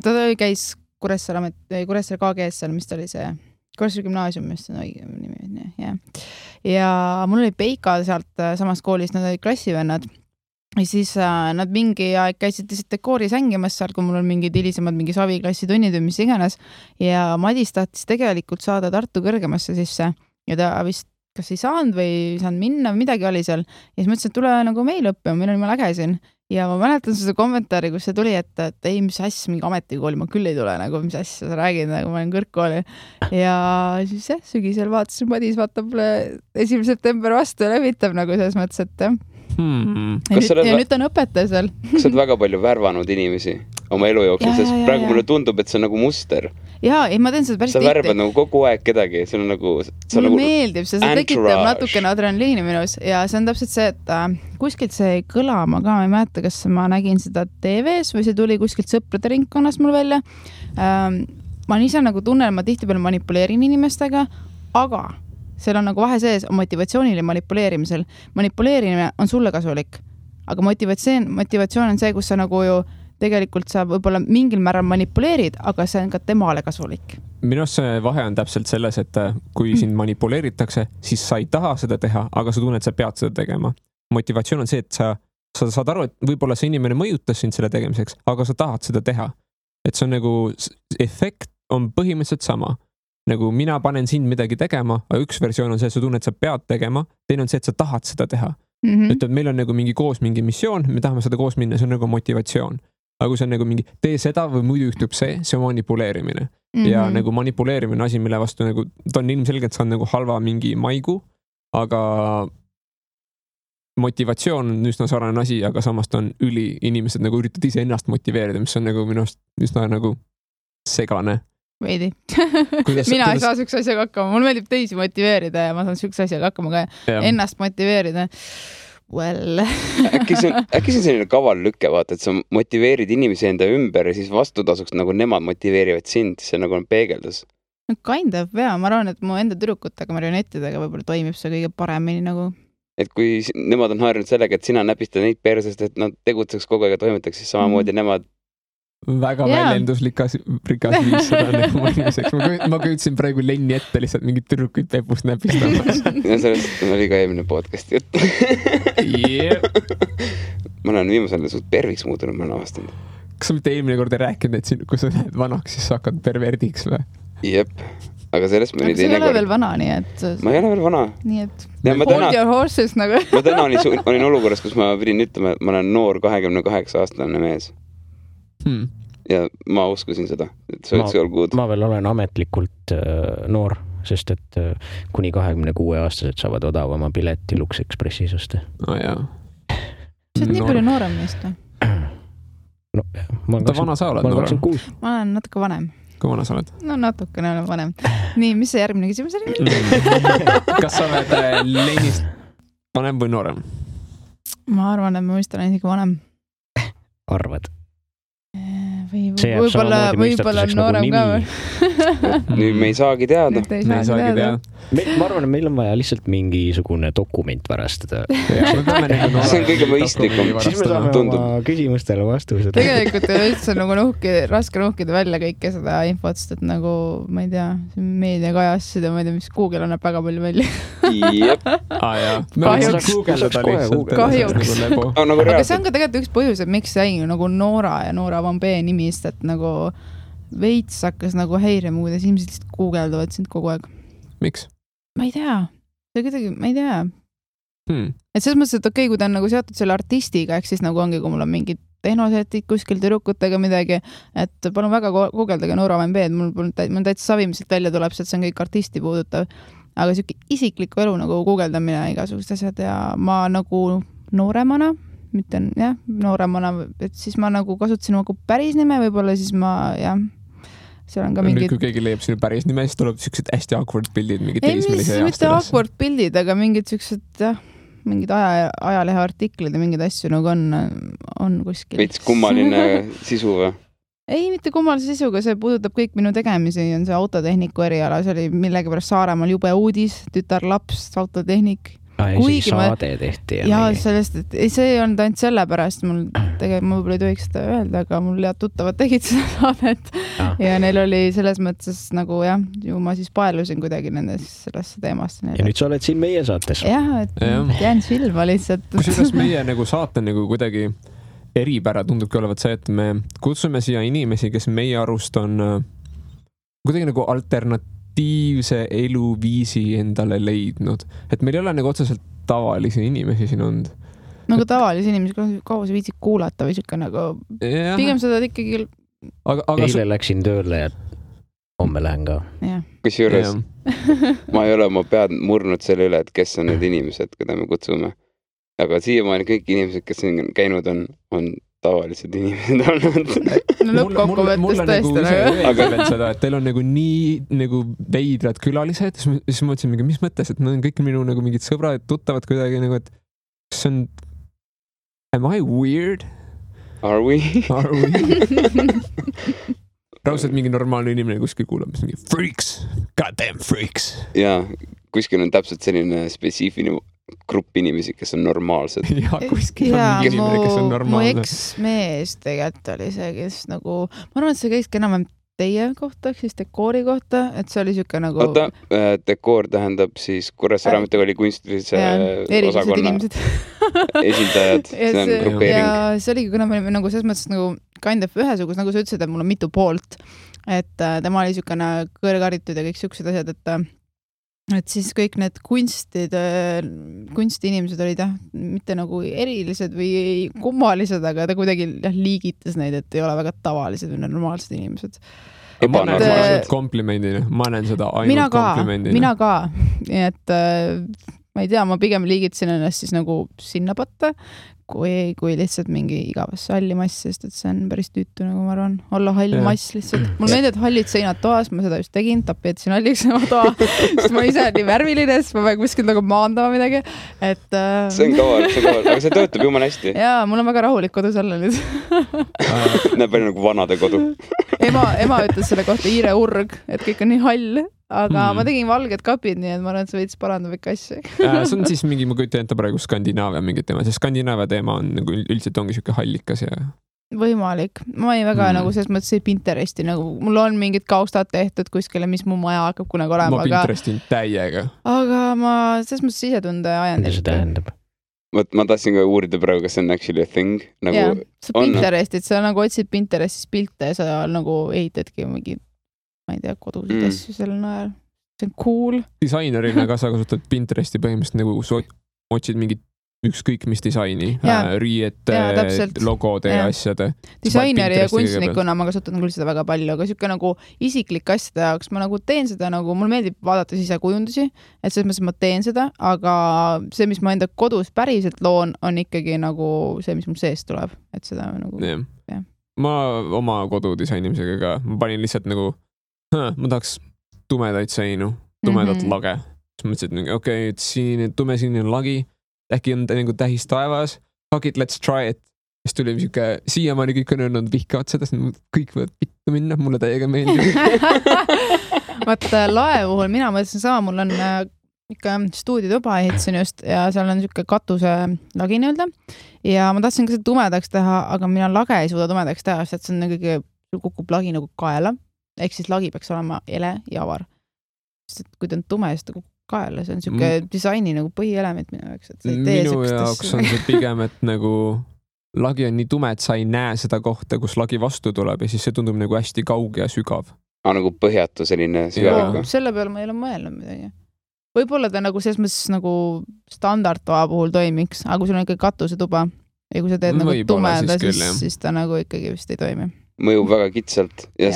Ta käis Kuressaare KGS seal, mis ta oli see Kuressaare gümnaasium, mis on õige nimi. Ja mul oli Peika sealt samast koolist, nad olid klassivennad. Ja siis nad mingi aeg käisid dekooris hängimas seal, kui mul on mingid hilisemad mingi saviklassi tunnid või mis iganes. Ja Madis tahtis tegelikult saada Tartu kõrgemasse sisse ja ta vist kas ei saanud või ei saanud minna või midagi oli seal. Ja siis mõtlesin, et tule nagu meil õppima, meil on juba läge siin. Ja ma mäletan seda kommentaari, kus see tuli, et ei, mis asja, mingi ametikooli, ma küll ei tule, nagu mis asja sa räägid, nagu ma olen kõrgkooli. Ja siis sügisel vaatasin, Madis vaatab 1. september vastu ja levitab nagu selles mõttes, et ja nüüd on õpetaja seal. Kas sa oled väga palju värvanud inimesi oma elu jooksul, sest praegu mulle tundub, et see on nagu muster. Jaa, ei, ma teen seda päris tihti. Sa värbad nagu kogu aeg kedagi, see on nagu... Mulle meeldib, see tekitab natukene adrenaliini minus ja see on täpselt see, et kuskilt see kõlama ka, ma ei mäleta, kas ma nägin seda TV-s või see tuli kuskilt sõprade ringkonnast mul välja. Ma ise nagu tunnen, ma tihtipeale manipuleerin inimestega, aga seal on nagu vahe sees motivatsioonil ja manipuleerimisel. Manipuleerimine on sulle kasulik, aga motivatsioon on see, kus sa nagu ju tegelikult sa võib-olla mingil määral manipuleerid, aga see on ka temale kasulik. Minu arust see vahe on täpselt selles, et kui sind manipuleeritakse, siis sa ei taha seda teha, aga sa tunned, et sa pead seda tegema. Motivatsioon on see, et sa saad aru, et võib-olla see inimene mõjutas sind selle tegemiseks, aga sa tahad seda teha. Et see on nagu, efekt on põhimõtteliselt sama. Nagu mina panen sind midagi tegema, aga üks versioon on see, et sa tunned, et sa pead tegema, teine on see, et sa tahad seda teha. Ütleb, meil on nagu mingi koos mingi missioon, me tahame seda koos minna, see on nagu motivatsioon. Aga kui see on nagu mingi, tee seda või muidu juhtub see on manipuleerimine. Ja nagu manipuleerimine asi, mille vastu nagu, ta on ilmselgelt saanud nagu halva mingi maigu, aga motivatsioon on üsna sarnane asi, aga samas ta on inimesed nagu üritavad ise ennast motiveerida, mis on nagu minu arust üsna nagu segane. Veidi. Mina ei saa sükse asjaga hakkama. Mul meeldib teisi motiveerida ja ma saan sükse asjaga hakkama ka ennast motiveerida. Well. äkki see on selline kaval lükke, vaata, et sa motiveerid inimesi enda ümber ja siis vastutasuks nagu nemad motiveerivad sind, see nagu on peegeldus. No kind of, ma arvan, et mu enda tüdrukutega, marionettidega võib-olla toimib see kõige paremini nagu. Et kui nemad on harjunud sellega, et sina näpistad neid persest, et nad tegutseks kogu aeg ja toimetaks, siis samamoodi nemad väga väljenduslikas viis seda nagu mõnimiseks. Ma küütsin praegu Lenni ette lihtsalt mingid tüdrukuid pepust näpistamas. Ja sellest oli ka eelmine podcast jutt. Ma olen viimasel suht perviks muutunud, ma olen avastanud. Kas sa mitte eelmine kord ei rääkinud, et kui sa lähed vanaks, siis sa hakkad perverdiks või? Jep, aga sellest me oli teine kord. Sa ei ole veel vana, nii et... Ma ei ole veel vana. Nii et hold your horses nagu. Ma täna olin olukorras, kus ma pidin ütlema, et ma olen noor 28-aastane mees. Ja ma uskusin seda, et see oleks all good. Ma veel olen ametlikult noor, sest et kuni 26-aastased saavad odavama pileti Lux Expressis osta. Jaa. See on nii palju noorem meest või? No, ta vana sa oled? Ma olen 26. Ma olen natuke vanem. Kui vana sa oled? No natukene olen vanem. Nii, mis see järgmine küsimus oli? Kas sa oled Lennist vanem või noorem? Ma arvan, et ma vist olen isegi vanem. Arvad? Võib-olla noorem ka või? Nüüd me ei saagi teada. Ma arvan, et meil on vaja lihtsalt mingisugune dokument varastada. See on kõige mõistlikum. Siis me saame oma küsimustele vastused. Tegelikult ei ole üldse nagu raske nuhkida välja kõike seda infot, sest et nagu, ma ei tea, meediakajassid ja ma ei tea, mis Google annab väga palju välja. Jep. Kahjuks. Aga see on ka tegelikult üks põhjus, et miks jäi nagu Noora ja Noora Van B nimist, et nagu veits hakkas nagu häirima, kuidas inimesed lihtsalt guugeldavad sind kogu aeg. Miks? Ma ei tea. See kuidagi, ma ei tea. Et selles mõttes, et okei, kui ta on nagu seotud selle artistiga, ehk siis nagu ongi, kui mul on mingid tehnosetid kuskil tüdrukutega midagi, et palun väga guugeldage Noora Van B, mul täitsa savimiselt välja tuleb, et see on kõik artisti puudutav. Aga siuke isikliku elu nagu guugeldamine igasugust asjad ja ma nagu nooremana, mitte nooremana, et siis ma nagu kasutasin nagu päris nime, võib-olla siis ma, seal on ka mingid... Nüüd, kui keegi leiab sinu päris nime, siis tuleb siuksed hästi awkward pildid, mingid teismelise aastalas. Mitte awkward pildid, aga mingid siuksed, mingid ajalehe artiklid ja mingid asju nagu on kuskil. Veits kummaline sisu või? Ei, mitte kummalise sisuga, see puudutab kõik minu tegemisi, on see autotehniku eriala, see oli millegi pärast Saaremaal jube uudis, tütarlaps, autotehnik. Kuigi saade tehti. Ja sellest, et see ei olnud ainult selle pärast, ma võib-olla ei tohiks seda öelda, aga mul head tuttavad tegid seda saadet ja neil oli selles mõttes nagu ju ma siis paelusin kuidagi sellesse teemast. Ja nüüd sa oled siin meie saates. Et jään silma lihtsalt. Kusjuures meie nagu saate nagu kuidagi eripära tundubki olevat see, et me kutsume siia inimesi, kes meie arust on kuidagi nagu alternatiivse eluviisi endale leidnud. Et meil ei ole nagu otseselt tavalisi inimesi siin olnud. Nagu tavalisi inimesi, kaua sa viitsid kuulata või siuke nagu... Pigem seda ikkagi... Eile läksin tööle ja homme lähen ka. Kusjuures ma ei ole oma pead murnud selle üle, et kes on need inimesed, keda me kutsume. Aga siiamaani kõik inimesed, kes on käinud, on tavalised inimesed olnud. No lõppkokkuvõttes tõesti. Aga seda, et teil on nagu nii nagu veidrad külalised, siis ma mõtlesin, mis mõttes, et nad on kõik minu nagu mingid sõbrad, tuttavad kuidagi nagu, et see on... Am I weird? Are we? Raudselt mingi normaalne inimene kuskil kuulab, mis mingi freaks, goddamn freaks. Ja kuskil on täpselt selline spetsiifiline grupp inimesi, kes on normaalsed. ja kuskil on mingi inimene, kes on mu normaalne. eksmees tegelikult oli see, kes nagu, ma arvan, et see käiski enam-vähem teie kohta, ehk siis dekoori kohta, et see oli siuke nagu... Oota, dekoor tähendab siis Kuressaare Ametikooli kunstilise osakonna esindajad, see on grupeering. Ja see oligi, kuna me olime nagu selles mõttes nagu kind of ühesugus, nagu sa ütlesid, et mul on mitu poolt, et tema oli siukene kõrgaritud ja kõik siuksed asjad, et siis kõik need kunstiinimesed olid mitte nagu erilised või kummalised, aga ta kuidagi liigitas neid, et ei ole väga tavalised või normaalsed inimesed. Ma näen seda komplimendina, ma näen seda ainult komplimendina. Mina ka, nii et ma ei tea, ma pigem liigitasin ennast siis nagu sinna patta, kui lihtsalt mingi igavasse halli mass, sest et see on päris tüütu, nagu ma arvan, olla hall mass lihtsalt. Mul meeldib hallid seinad toas, ma seda just tegin, tapeetsin halliks oma toa, sest ma ise nii värviline, sest ma pean kuskil nagu maandama midagi. Et, see on kaval, aga see töötab jumala hästi. Jaa, mul on väga rahulik kodus olla nüüd. Näeb palju nagu vanade kodu. Ema ütles selle kohta Iire urg, et kõik on nii hall. Aga ma tegin valged kapid, nii et ma arvan, et see veits parandab ikka asju. See on siis mingi, ma kujutan ette praegu Skandinaavia mingit teema, sest Skandinaavia teema on nagu üldiselt ongi siuke hallikas ja... Võimalik. Ma ei väga nagu selles mõttes ei Pinteresti, nagu mul on mingid kaustad tehtud kuskile, mis mu maja hakkab kunagi olema. Ma Pinterestin täiega. Aga ma selles mõttes sisetunde ajan. Mida see tähendab? Ma tahtsin ka uurida praegu, kas see on actually a thing. Nagu ja, sa Pinterestid, sa nagu otsid Pinterestis pilte ja sa nagu ehitadki mingi ma ei tea, kodusid asju sellel najal. See on cool. Disainerina ka sa kasutad Pinteresti põhimõtteliselt nagu otsid mingit ükskõik mis disaini, riiete, logode ja asjade. Disaineri ja kunstnikuna ma kasutan küll seda väga palju, aga siuke nagu isiklik asjade jaoks ma nagu teen seda nagu, mul meeldib vaadata sisekujundusi, et selles mõttes ma teen seda, aga see, mis ma enda kodus päriselt loon, on ikkagi nagu see, mis mul seest tuleb, et seda nagu... Ja. Ma oma kodu disainimisega ka, ma panin lihtsalt nagu ma tahaks tumedaid seinu, tumedat lage. Siis mõtlesin, et okei, tume sinine lagi, äkki on nagu tähis taevas, fuck it, let's try it. Siis tuli siuke, siiamaani kõik on öelnud vihkavad seda, kõik võivad pittu minna, mulle täiega meeldib. Vaata, lae puhul mina mõtlesin sama, mul on ikka stuudiotuba ehitasin just ja seal on siuke katuse lagi nii-öelda ja ma tahtsin ka seda tumedaks teha, aga mina lage ei suuda tumedaks teha, sest see on kõige kukub lagi nagu kaela. Ehk siis lagi peaks olema ele ja avar. Sest et kui ta on tume, siis ta kukub kaela. See on siuke disaini nagu põhielement minu jaoks. Minu jaoks on see pigem, et nagu lagi on nii tume, et sa ei näe seda kohta, kus lagi vastu tuleb ja siis see tundub nagu hästi kauge ja sügav. Nagu põhjatu selline sügav. Selle peale ma ei ole mõelnud midagi. Võib-olla ta nagu selles mõttes nagu standardtoa puhul toimiks, aga kui sul on ikka katusetuba ja kui sa teed nagu tumeda, siis ta nagu ikkagi vist ei toimi. Mõjub väga kitsalt ja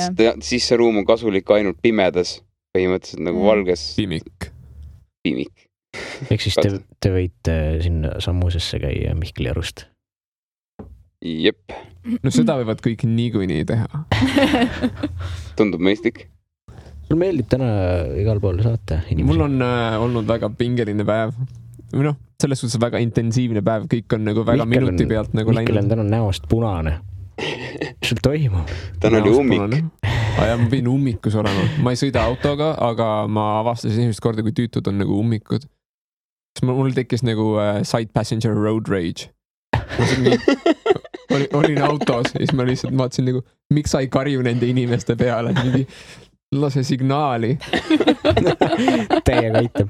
siis see ruum on kasulik ainult pimedas, põhimõtteliselt nagu valges. Pimik. Ehk siis te võite sinna sammusesse käia Mihkli Arust. Jep. No seda võivad kõik niikuinii teha. Tundub mõistlik. Sul meeldib täna igal pool saata inimesi? Mul on olnud väga pingeline päev. Või selles suhtes väga intensiivne päev, kõik on nagu väga minuti pealt nagu läinud. Mihkel on täna näost punane. Sul toimub? Täna oli ummik. Ja ma pidin ummikus olema. Ma ei sõida autoga, aga ma avastasin esimest korda, kui tüütud on nagu ummikud. Siis mul tekkis nagu side passenger road rage. Olin autos ja siis ma lihtsalt vaatasin nagu, miks sa ei karju nende inimeste peale, mingi lase signaali. Täiega aitab.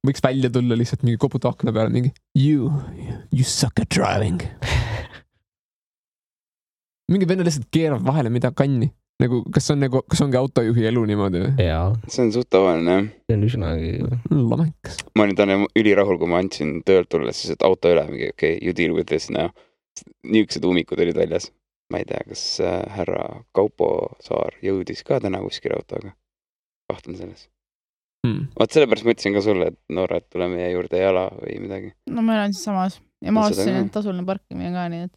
Võiks välja tulla lihtsalt mingi koputa akna peale, mingi you suck at driving. Mingi venna lihtsalt keerab vahele mida kanni. Nagu, kas ongi autojuhi elu niimoodi? Jaa. See on suht tavaline, jah. See on üsnagi... Lamekas. Ma olin täna ülirahul, kui ma andsin töölt tulla, siis et auto üle mingi, okay, you deal with this now. Niisugused ummikud olid väljas. Ma ei tea, kas härra Kaupo Saar jõudis ka täna kuskil autoga. Kahtlen selles. Vaat sellepärast ma ütlesin ka sulle, et Noora, et tule meie juurde jala või midagi. No ma olen siis samas. Ja ma ostsin, et tasuline parkimine ka, nii et...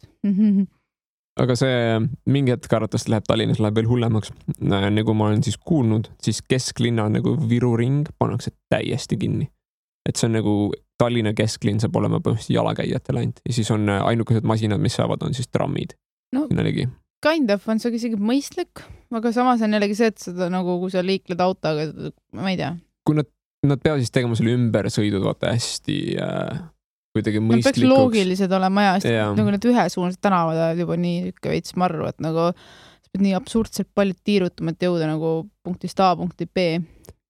Aga see mingi hetk arvatavasti läheb Tallinnas läheb veel hullemaks. Nagu ma olen siis kuulnud, siis kesklinna nagu Viru ring pannakse täiesti kinni. Et see on nagu Tallinna kesklinn saab olema põhimõtteliselt jalakäijatele ainult. Ja siis on ainukesed masinad, mis saavad, on siis trammid. No, kind of on see isegi mõistlik, aga samas on jällegi see, et seda nagu, kui sa liikled autoga, ma ei tea. Kui nad nad peavad siis tegema selle ümbersõidud vaata hästi kuidagi Nad peaks mõistlikuks. loogilised olema sest Jaa. nagu need ühesuunased tänavad oled juba nii veits marru, et nagu sa pead nii absurdselt palju tiirutama, et jõuda nagu punktist A punkti B.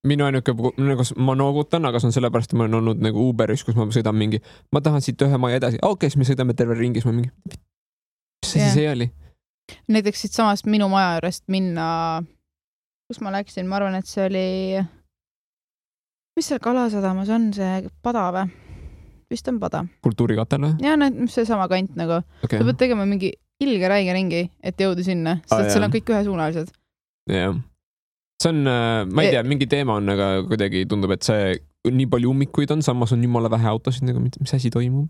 Minu ainuke, nagu ma noogutan, aga see on sellepärast, et ma olen olnud nagu Uberis, kus ma sõidan mingi, ma tahan siit ühe maja edasi, siis me sõidame terve ringis, ma mingi, mis see siis oli? Näiteks siit samast minu maja juurest minna, kus ma läksin, ma arvan, et see oli, mis seal Kalasadamas on, see pada või? Vist on pada. Kultuurikatel või? Jaa, see sama kant nagu. Okay. Sa pead tegema mingi ilge räige ringi, et jõuda sinna, sest seal on kõik ühesuunalised. Jah. See on, ma ei tea, mingi teema on, aga kuidagi tundub, et see nii palju ummikuid on, samas on jumala vähe autosid, nagu mis asi toimub.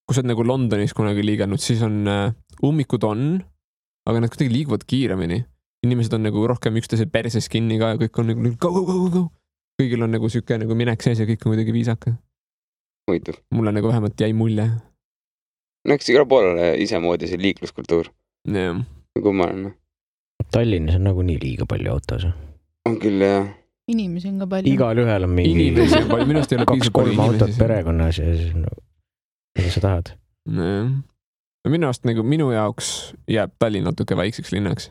Kui sa oled nagu Londonis kunagi liigelnud, siis on ummikud on, aga nad kuidagi liiguvad kiiremini. Inimesed on nagu rohkem üksteise perses kinni ka ja kõik on nagu go. Kõigil on nagu siuke nagu minek sees ja kõik on kuidagi viisaka. Huvitav. Mulle nagu vähemalt jäi mulje. No eks igal pool isemoodi see liikluskultuur. Yeah. Kummaline. Tallinnas on nagu nii liiga palju autos. On küll, jah. Inimesi on ka palju. Igal ühel on mingi inimesi on palju, minust ei ole 2-3 autot perekonnas ja siis mida sa tahad? Minu arust nagu minu jaoks jääb Tallinn natuke väikseks linnaks.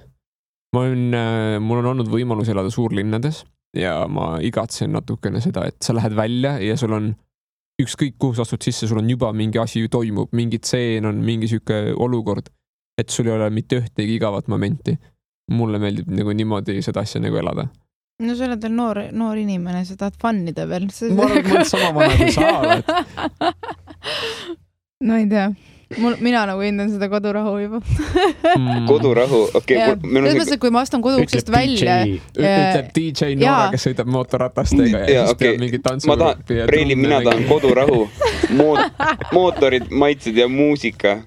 Mul on olnud võimalus elada suurlinnades ja ma igatsen natukene seda, et sa lähed välja ja sul on ükskõik kuhu sa astud sisse, sul on juba mingi asi toimub, mingi tseen on, mingi siuke olukord, et sul ei ole mitte ühtegi igavat momenti. Mulle meeldib nagu niimoodi seda asja nagu elada. No sa oled veel noor inimene, sa tahad fannida veel. Ma arvan, et ma olen sama vana kui sa oled. No ei tea. Mina nagu hindan seda kodurahu juba. Kodurahu, okei. Selles mõttes, et kui ma astun koduuksest välja. Ütleb DJ Noora, kes sõidab mootorratastega ja siis peab mingi tantsu. Mina tahan kodurahu, mootorid, maitsed ja muusika.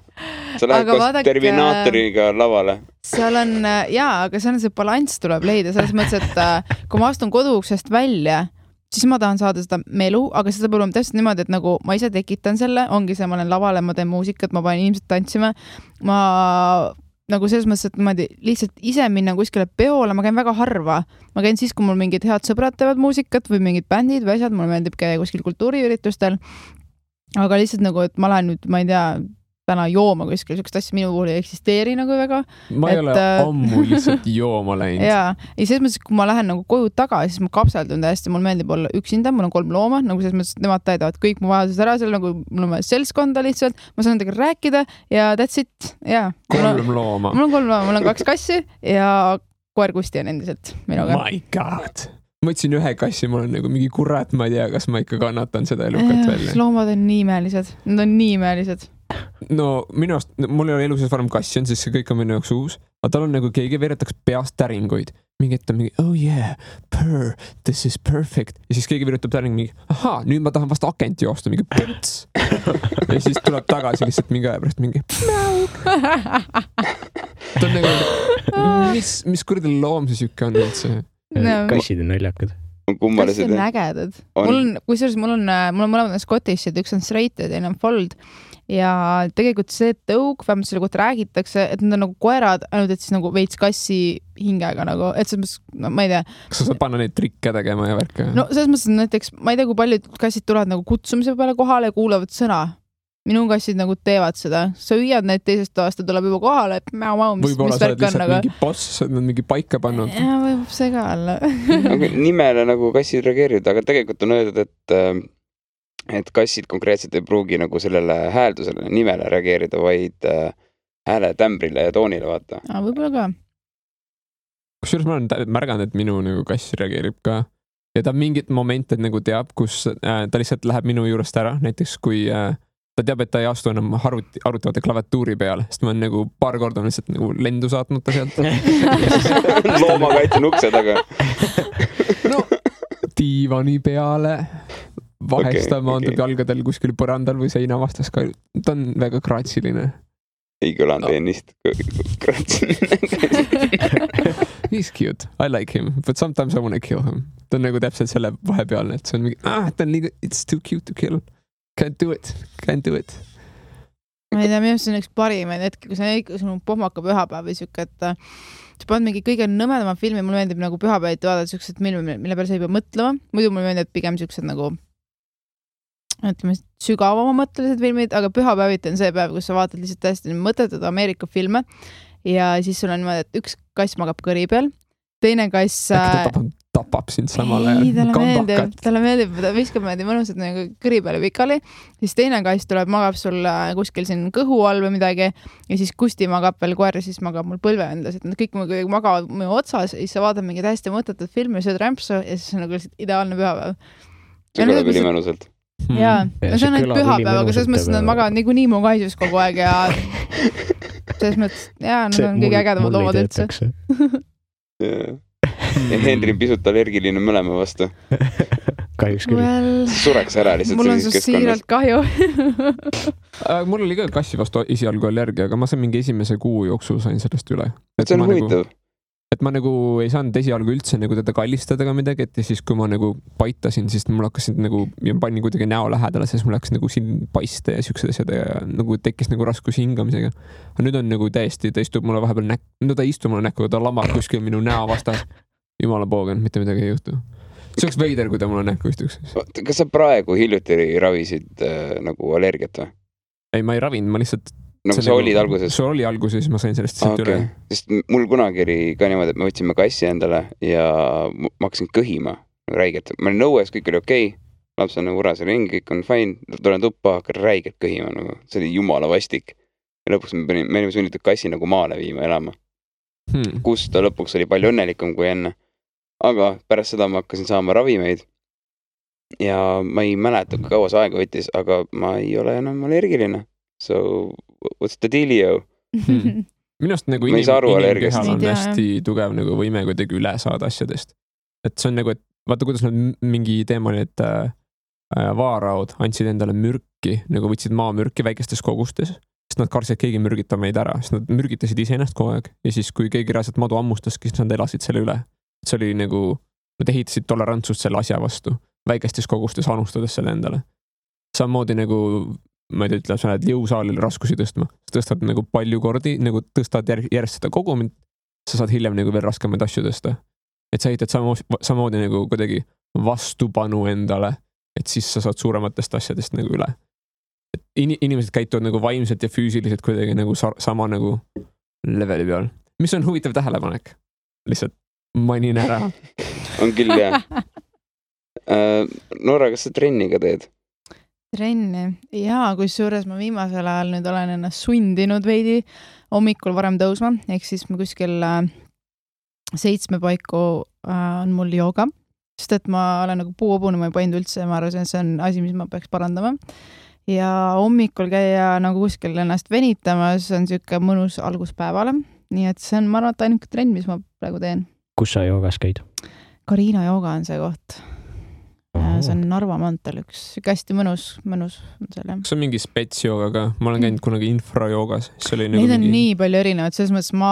Sa lähed koos Terminaatoriga lavale. Seal on, aga seal on see balanss tuleb leida. Selles mõttes, et kui ma astun koduuksest välja, siis ma tahan saada seda melu, aga seda peab olema täpselt niimoodi, et nagu ma ise tekitan selle, ongi see, ma olen lavale, ma teen muusikat, ma panen inimesed tantsima. Ma nagu selles mõttes, et niimoodi lihtsalt ise minna kuskile peole, ma käin väga harva. Ma käin siis, kui mul mingid head sõbrad teevad muusikat või mingid bändid või asjad, mulle meeldib käia kuskil kultuuriüritustel. Aga lihtsalt nagu, et ma lähen nüüd, ma ei tea, täna jooma kuskil, sükest asja minu puhul ei eksisteeri nagu väga. Ma ei ole ammu lihtsalt jooma läinud. Jaa, ja selles mõttes, kui ma lähen nagu koju tagasi, siis ma kapseldun täiesti, mul meeldib olla üksinda, mul on 3 looma, nagu selles mõttes, et nemad täidavad kõik mu vajadused ära, seal nagu mul on seltskonda lihtsalt, ma saan nendega rääkida ja that's it. Ja, 3 looma. Mul on 3 looma, mul on 2 kassi ja koer Kusti on endiselt minuga. My god! Ma ütlesin 1 kassi, mul on nagu mingi kurat, ma ei tea, kas ma ikka kannatan seda elukat välja. Loomad on nii imelised, nad on nii imelised. No minu arust, mul ei ole eluses varem kassi on, siis see kõik on minu jaoks uus. Aga tal on nagu keegi veeretaks peast täringuid. Mingi, et on mingi, oh yeah, purr, this is perfect. Ja siis keegi veeretab täring mingi, aha, nüüd ma tahan vast akent joosta, mingi põts. Ja siis tuleb tagasi lihtsalt mingi aja pärast mingi ta on nagu, mis kuradi loom see siuke on üldse? Kassid on naljakad. Kassid on ägedad. Mul on mõlemad Scottishid, üks on straight ja teine on fold. Ja tegelikult see tõug, vähemalt selle kohta räägitakse, et nad on nagu koerad, ainult et siis nagu veits kassi hingega nagu, et selles mõttes, no ma ei tea. Kas sa saad panna neid trikke tegema ja värke? No selles mõttes, et näiteks, ma ei tea, kui paljud kassid tulevad nagu kutsumise peale kohale ja kuulavad sõna. Minu kassid nagu teevad seda. Sa hüüad neid teisest toast ja tuleb juba kohale, et võib-olla sa oled lihtsalt mingi boss, sa oled mingi paika pannud. Ja võib see ka olla. Nimele nagu kassid reageerivad, aga tegelikult on öeldud, et kassid konkreetselt ei pruugi nagu sellele hääldusele, nimele reageerida, vaid hääle tämbrile ja toonile vaata. Võib-olla ka. Kusjuures ma olen märganud, et minu nagu kass reageerib ka. Ja ta mingit momente nagu teab, kus ta lihtsalt läheb minu juurest ära, näiteks kui ta teab, et ta ei astu enam arutavate klaviatuuri peale, sest ma olen nagu paar korda lihtsalt nagu lendu saatnud ta sealt. Loomakaitse ukse taga. No, diivani peale. Vahest ta maandub jalgadel kuskil põrandal või seina vastas ka. Ta on väga kratsiline. Ei kõlanud ennist kratsiline. He's cute. I like him. But sometimes I want to kill him. Ta on nagu täpselt selle vahepealne, et see on mingi, ta on liiga, it's too cute to kill. Can't do it. ma ei tea, minu see on üks parimaid hetki, kui sul on pohmaka pühapäev või siuke, et sa paned mingi kõige nõmedama filmi, mulle meeldib nagu pühapäeviti vaadata siuksed filmi, mille peale sa ei pea mõtlema. Muidu mulle meeldib pigem siuksed nagu ütleme sügavama mõttelised filmid, aga pühapäeviti on see päev, kus sa vaatad lihtsalt täiesti mõttetud Ameerika filme ja siis sul on niimoodi, et üks kass magab kõri peal, teine kass tapab sind samal ajal. Talle meeldib, ta viskab meelde mõnusad nagu kõri peale pikali, siis teine kass tuleb, magab sul kuskil siin kõhu all või midagi ja siis Kusti magab veel koer ja siis magab mul põlve endas, et nad kõik magavad minu otsas ja siis sa vaatad mingi täiesti mõttetut filmi, sööd rämpsu ja siis on nagu lihtsalt ideaalne pühapäev. See kõlab ülimõnusalt. Jaa, see on ainult pühapäev, aga selles mõttes nad magavad niikuinii mu kaisus kogu aeg ja selles mõttes, jaa, nad on kõige ägedamad loomad üldse. Ja Henri pisut allergiline mõlema vastu. Kahjuks küll. Sureks ära lihtsalt. Mul on su siiralt kahju. Mul oli ka kassi vastu esialgu allergia, aga ma sain mingi esimese kuu jooksul sain sellest üle. See on huvitav. Et ma nagu ei saanud esialgu üldse nagu teda kallistada ka midagi, et siis kui ma nagu paitasin, siis mul hakkasid nagu, ja panin kuidagi näo lähedale, siis mul hakkas nagu siin paiste ja siuksed asjad ja nagu tekkis nagu raskus hingamisega. Aga nüüd on nagu täiesti, ta istub mulle vahepeal no ta ei istu mulle näkku, ta lamab kuskil minu näo vastas. Jumala poogen, mitte midagi ei juhtu. See oleks veider, kui ta mulle näkku istuks. Kas sa praegu hiljuti ravisid nagu allergiat või? Ei, ma ei ravinud, ma lihtsalt nagu sa olid alguses? See oli alguses, ma sain sellest üle. Sest mul kunagi oli ka niimoodi, et me võtsime kassi endale ja ma hakkasin kõhima räigelt. Ma olin nõues, kõik oli okei. Laps on nagu urasel ringi, kõik on fine. Tulen tuppa, hakkan räigelt kõhima. Nagu. See oli jumala vastik. Ja lõpuks me olime sunnitud kassi nagu maale viima elama. Kus ta lõpuks oli palju õnnelikum kui enne. Aga pärast seda ma hakkasin saama ravimeid. Ja ma ei mäleta, kui kaua see aega võttis, aga ma ei ole enam allergiline. So, what's the dealio? Minust nagu inimkehal on hästi tugev nagu võime kuidagi üle saada asjadest. Et see on nagu, et vaata, kuidas nad mingi teema oli, et vaaraud andsid endale mürki, nagu võtsid maamürki väikestes kogustes, sest nad kartsid, et keegi mürgitab meid ära, sest nad mürgitasid iseennast kogu aeg ja siis, kui keegi reaalselt madu ammustaski, siis nad elasid selle üle. See oli nagu, nad ehitasid tolerantsust selle asja vastu, väikestes kogustes anustades selle endale. Samamoodi nagu ma ei ütle, sa lähed jõusaalil raskusi tõstma. Sa tõstad nagu palju kordi, nagu tõstad järjest seda kogumit, sa saad hiljem nagu veel raskemaid asju tõsta. Et sa ehitad samamoodi nagu kuidagi vastupanu endale, et siis sa saad suurematest asjadest nagu üle. Et inimesed käituvad nagu vaimselt ja füüsiliselt kuidagi nagu sama nagu leveli peal. Mis on huvitav tähelepanek? Lihtsalt mainin ära. On küll, jah. Noora, kas sa trenni ka teed? Trenni. Jaa, kui suures ma viimasel ajal nüüd olen ennast sundinud veidi hommikul varem tõusma, ehk siis ma kuskil 7 paiku on mul jooga, sest et ma olen nagu puuobune, ma ei pannud üldse, ma arvan, see on asi, mis ma peaks parandama. Ja hommikul käia nagu kuskil ennast venitamas on siuke mõnus alguspäevale, nii et see on, ma arvan, ainuke trenn, mis ma praegu teen. Kus sa joogas käid? Karina jooga on see koht. See on Narva mantel üks, hästi mõnus on seal, jah. See on mingi spetsjooga ka, ma olen käinud kunagi infrajoogas. Neid on nii palju erinevad, selles mõttes ma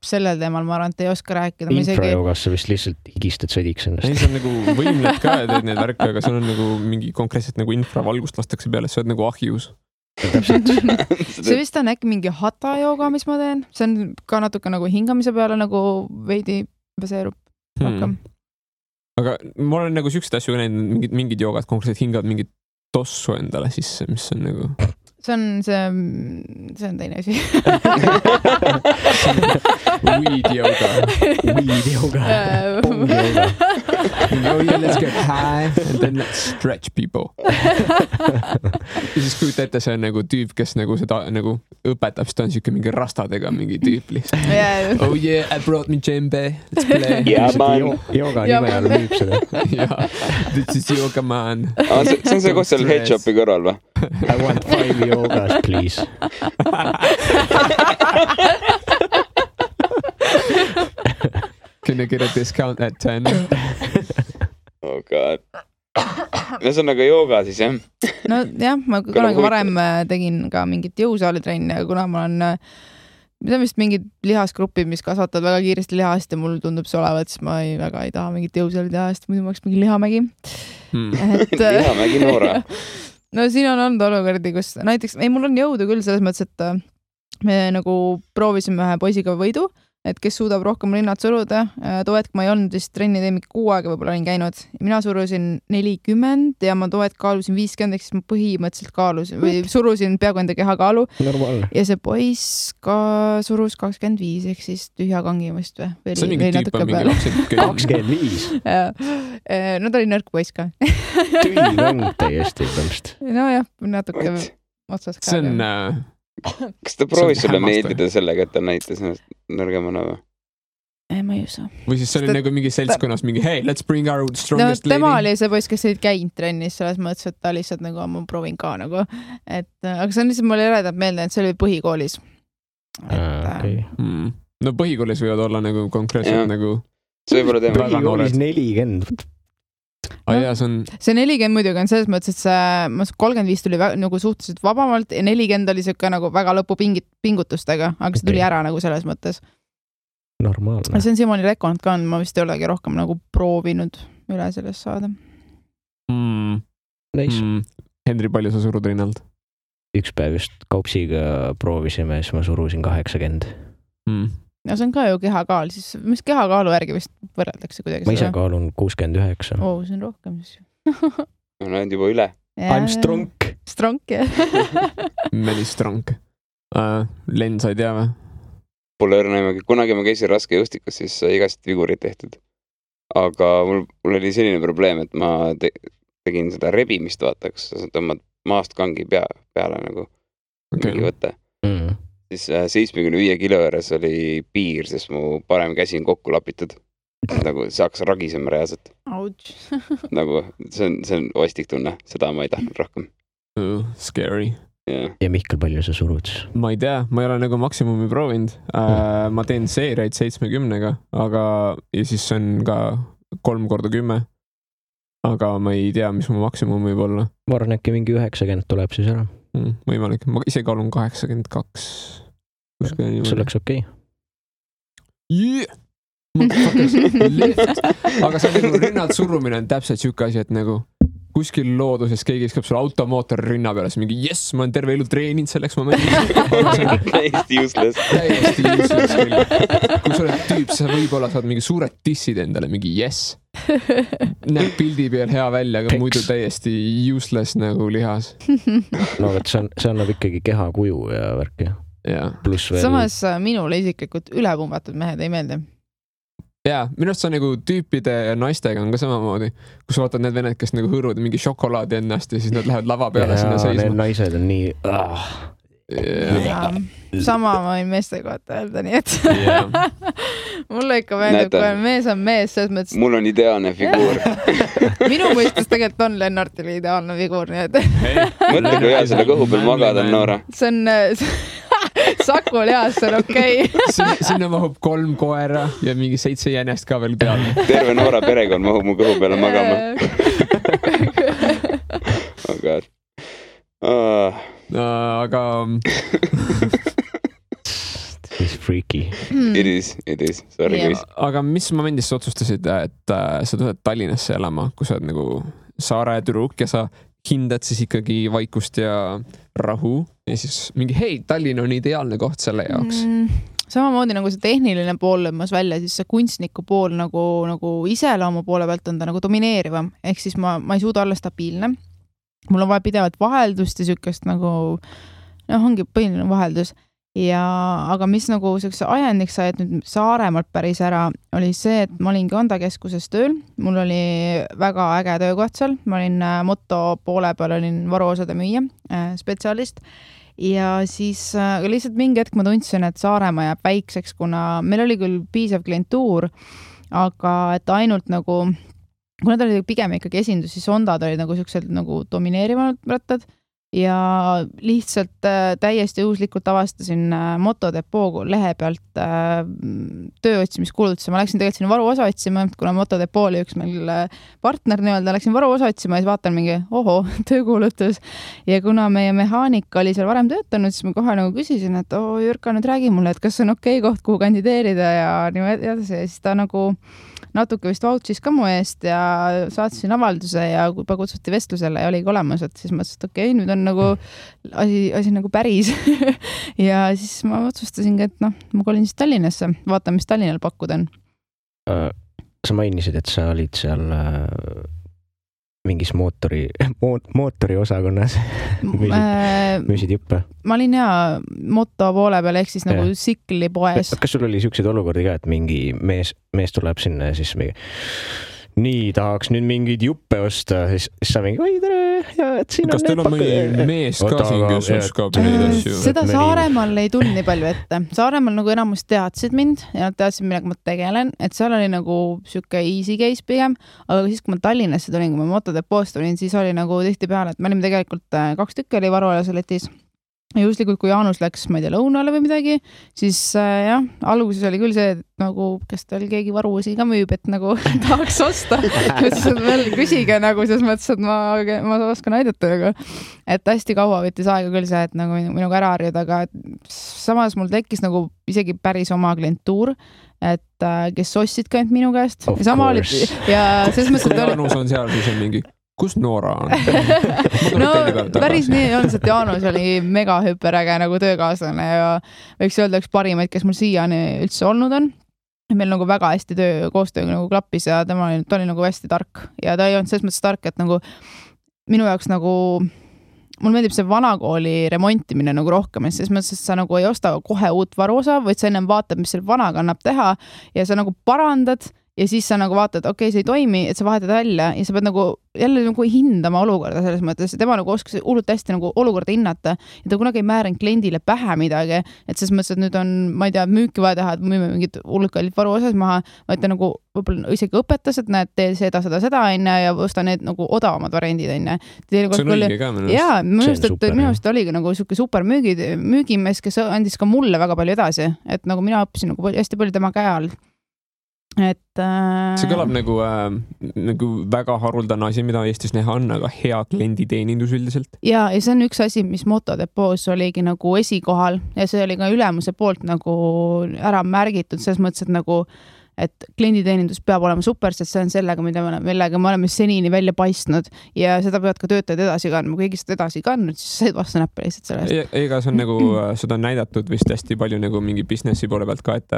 sellel teemal, ma arvan, et ei oska rääkida. Infrajoogas sa vist lihtsalt higistad sõdiks ennast. Ei, see on nagu võimled ka ja teed neid värke, aga see on nagu mingi konkreetselt nagu infravalgust lastakse peale, see on nagu ahjus. See vist on äkki mingi hata jooga, mis ma teen. See on ka natuke nagu hingamise peale nagu veidi baseerub rohkem. Aga ma olen nagu siuksed asju näinud, mingid joogad konkreetselt hingavad mingit tossu endale sisse, mis on nagu... See on teine asi. Weed yoga. Bong yoga. Oh yeah, let's get high and then let's stretch people. Ja siis kujuta ette, see on nagu tüüp, kes nagu seda nagu õpetab, siis ta on siuke mingi rastadega mingi tüüp lihtsalt. Oh yeah, I brought me djembe. Let's play. Yeah, man. Yoga nime all müüb seda. Yeah, this is yoga man. See on see koht seal headshopi kõrval või? I want 5 yogas, please. Can I get a discount at 10? Oh god. See on nagu jooga siis, jah? No jah, ma kunagi varem tegin ka mingit jõusaalitrenni, aga kuna ma olen see on vist mingid lihasgrupid, mis kasvatavad väga kiiresti lihast ja mul tundub see olevat, siis ma väga ei taha mingit jõusaali teha, sest muidu ma oleks mingi lihamägi. Lihamägi Noora. no siin on olnud olukordi, kus näiteks, mul on jõudu küll selles mõttes, et me nagu proovisime ühe poisiga võidu, et kes suudab rohkem rinnad suruda. Too hetk ma ei olnud vist trenni teinud 6 aega, võib-olla olin käinud. Mina surusin 40 ja ma too hetk kaalusin 50, ehk siis ma põhimõtteliselt kaalusin või surusin peaaegu enda keha kaalu. Normaalne. Ja see poiss ka surus 25, ehk siis tühja kangimist või? See on mingi tüüp on mingi lapsed. 25. No ta oli nõrk poiss ka. Tühi mäng täiesti tõmst. No jah, natuke otsas ka. See on... Kas ta proovis sulle meeldida sellega, et ta näitas ennast nõrgemana või? Ma ei usu. Või siis see oli nagu mingi seltskonnas mingi hey, let's bring our strongest lady. Tema oli see poiss, kes ei käinud trennis, selles mõttes, et ta lihtsalt nagu, ma proovin ka nagu. Aga see on lihtsalt mulle eredab meelde, et see oli põhikoolis. No põhikoolis võivad olla nagu konkreetselt nagu... See võib olla teema. Põhikoolis 40. See 40 muidugi on selles mõttes, et see 35 tuli nagu suhteliselt vabamalt ja 40 oli siuke nagu väga lõpu pingutustega, aga see tuli ära nagu selles mõttes. Normaalne. See on Simoni rekord ka on, ma vist ei olegi rohkem nagu proovinud üle sellest saada. Henri, palju sa surud rinnalt? Üks päev just kaupsiga proovisime, siis ma surusin 80. Ja see on ka ju kehakaal, siis mis kehakaalu järgi vist võrreldakse kuidagi? Ma ise kaalun 69. See on rohkem siis. No on juba üle. I'm strong. Strong, jah. Many strong. Len, sa ei tea või? Pole õrnaimagi. Kunagi ma käisin raskejõustikus, siis igast vigurid tehtud. Aga mul oli selline probleem, et ma tegin seda rebimist, vaataks, sa tõmbad maast kangi peale nagu mingi võte. Siis 75 kilo juures oli piir, sest mu parem käsi on kokku lapitud. Nagu see hakkas ragisema reaalselt. Nagu see on ostik tunne, seda ma ei tahtnud rohkem. Scary. Yeah. Ja Mihkel, palju sa surud? Ma ei tea, ma ei ole nagu maksimumi proovinud. Ma teen seeriaid 70-ga, aga ja siis see on ka 3x10. Aga ma ei tea, mis mu maksimum võib olla. Ma arvan, äkki mingi 90 tuleb siis ära. Võimalik. Ma ise kaalun 82. See oleks okei. Yeah! Aga see nagu rinnad surumine on täpselt siuke asi, et nagu kuskil looduses keegi iskab sulle automootor rinna peale, siis mingi yes, ma olen terve elu treeninud selleks momendiks. Täiesti useless. Täiesti useless küll. Kui sa oled tüüp, sa võib-olla saad mingi suured dissid endale, mingi yes. Näeb pildi peal hea välja, aga muidu täiesti useless nagu lihas. No et see annab ikkagi keha kuju ja värki. Samas minule isiklikult ülepumbatud mehed ei meeldi. Jaa, minu arust see on nagu tüüpide ja naistega on ka samamoodi, kus vaatad need vened, kes nagu hõõruvad mingi šokolaadi ennast ja siis nad lähevad lava peale sinna seisma. Need naised on nii... Sama ma võin meeste kohta öelda, nii et mulle ikka meeldib, kui mees on mees, selles mõttes... Mul on ideaalne figuur. Minu mõistes tegelikult on Lennartile ideaalne figuur, nii et... Mõtle, kui hea selle kõhu peal magada on, Noora. See on... Saku lihas, see on okei. Sinna mahub 3 koera ja mingi 7 jänest ka veel peale. Terve Noora perekond mahub mu kõhu peale magama. Oh god. Aga... It's freaky. It is. Sorry, guys. Aga mis momendis sa otsustasid, et sa tuled Tallinnasse elama, kui sa oled nagu saare tüdruk ja sa hindad siis ikkagi vaikust ja rahu ja siis mingi hei, Tallinn on ideaalne koht selle jaoks. Samamoodi nagu see tehniline pool lõmmas välja, siis see kunstniku pool nagu iseloomu poole pealt on ta nagu domineerivam. Ehk siis ma ei suuda olla stabiilne. Mul on vaja pidevalt vaheldust ja sükest nagu, ongi põhiline vaheldus. Aga mis nagu ajendiks sai, et nüüd Saaremaalt päris ära, oli see, et ma olin Onda keskuses tööl. Mul oli väga äge töökoht seal. Ma olin Motto poole peal, olin varuosade müüja, spetsialist. Ja siis lihtsalt mingi hetk ma tundsin, et Saaremaa jääb väikseks, kuna meil oli küll piisav klientuur, aga et ainult nagu, kuna ta oli pigem ikkagi esindus, siis Ondad olid nagu sellised nagu domineerivanud rattad. ja lihtsalt täiesti juhuslikult avastasin Motodepoo lehe pealt tööotsimiskuulutusi. Ma läksin tegelikult sinna varuosa otsima, kuna Motodepoo oli üks meil partner nii-öelda, läksin varuosa otsima ja siis vaatan mingi töökuulutus. Ja kuna meie mehaanika oli seal varem töötanud, siis ma kohe nagu küsisin, et Jürka, nüüd räägi mulle, et kas on okei koht, kuhu kandideerida ja niimoodi edasi. Ja siis ta nagu natuke vist vouchis ka mu eest ja saatsin avalduse ja juba kutsuti vestlusele ja oligi olemas, et siis mõtlesin, et okei, nüüd on nagu asi nagu päris. Ja siis ma otsustasingi, et ma kolin siis Tallinnasse, vaatan, mis Tallinnal pakkuda on. Sa mainisid, et sa olid seal mingis mootori osakonnas müüsid juppe. Ma olin moto poole peal, ehk siis nagu sikli poes. Kas sul oli siukseid olukordi ka, et mingi mees tuleb sinna ja siis nii tahaks nüüd mingeid juppe osta, siis sa mingi, oi tere, ja et siin kas on teil on mõni mees ka siin, kes oskab neid asju? Seda Saaremaal ei tulnud nii palju ette. Saaremaal nagu enamus teadsid mind ja nad teadsid, millega ma tegelen, et seal oli nagu siuke easy case pigem, aga siis, kui ma Tallinnasse tulin, kui ma Motodepoost tulin, siis oli nagu tihti peale, et me olime tegelikult 2 tükki oli varuolas letis. Ja justlikult, kui Jaanus läks, ma ei tea, lõunale või midagi, siis alguses oli küll see, et nagu, kas tal keegi varuosi ka müüb, et nagu tahaks osta. Siis veel küsige nagu, selles mõttes, et ma oskan aidata. Nagu. Et hästi kaua võttis aega küll see, et nagu minuga ära harjuda, aga samas mul tekkis nagu isegi päris oma klientuur, et kes ostsid ka ainult minu käest. Ja selles mõttes, et Jaanus on seal, siis on mingi kus Noora on? No päris nii on, et Jaanus oli mega hüperäge nagu töökaaslane ja võiks öelda üks parimaid, kes mul siiani üldse olnud on. Meil nagu väga hästi koostöö nagu klappis ja ta oli nagu hästi tark ja ta ei olnud selles mõttes tark, et nagu minu jaoks nagu mul meeldib see vanakooli remontimine nagu rohkem, et selles mõttes, et sa nagu ei osta kohe uut varuosa, vaid sa ennem vaatad, mis selle vanaga annab teha ja sa nagu parandad ja siis sa nagu vaatad, okei, see ei toimi, et sa vahetad välja ja sa pead nagu jälle nagu hindama olukorda selles mõttes. Tema nagu oskas hullult hästi nagu olukorda hinnata ja ta kunagi ei määranud kliendile pähe midagi, et selles mõttes, et nüüd on, ma ei tea, müüki vaja teha, et müüme mingid hullult kallid varuosas maha, vaid ta nagu võib-olla isegi õpetas, et näed, tee seda ja osta need nagu odavamad variandid enne. See on õige ka minu. Jaa, minu arust oligi nagu siuke super müügimees, kes andis ka mulle väga palju edasi, et nagu mina õppisin nagu hästi palju tema käe all. See kõlab nagu väga haruldane asi, mida Eestis näha on, aga hea klienditeenindus üldiselt. Ja see on üks asi, mis Motodepoos oligi nagu esikohal ja see oli ka ülemuse poolt nagu ära märgitud, selles mõttes, et nagu et klienditeenindus peab olema super, sest see on sellega, millega me oleme senini välja paistnud ja seda peavad ka töötajad edasi kandma. Kui keegi seda edasi kandnud, siis said vastu näppe lihtsalt sellest. Ega see on nagu, seda on näidatud vist hästi palju nagu mingi businessi poole pealt ka, et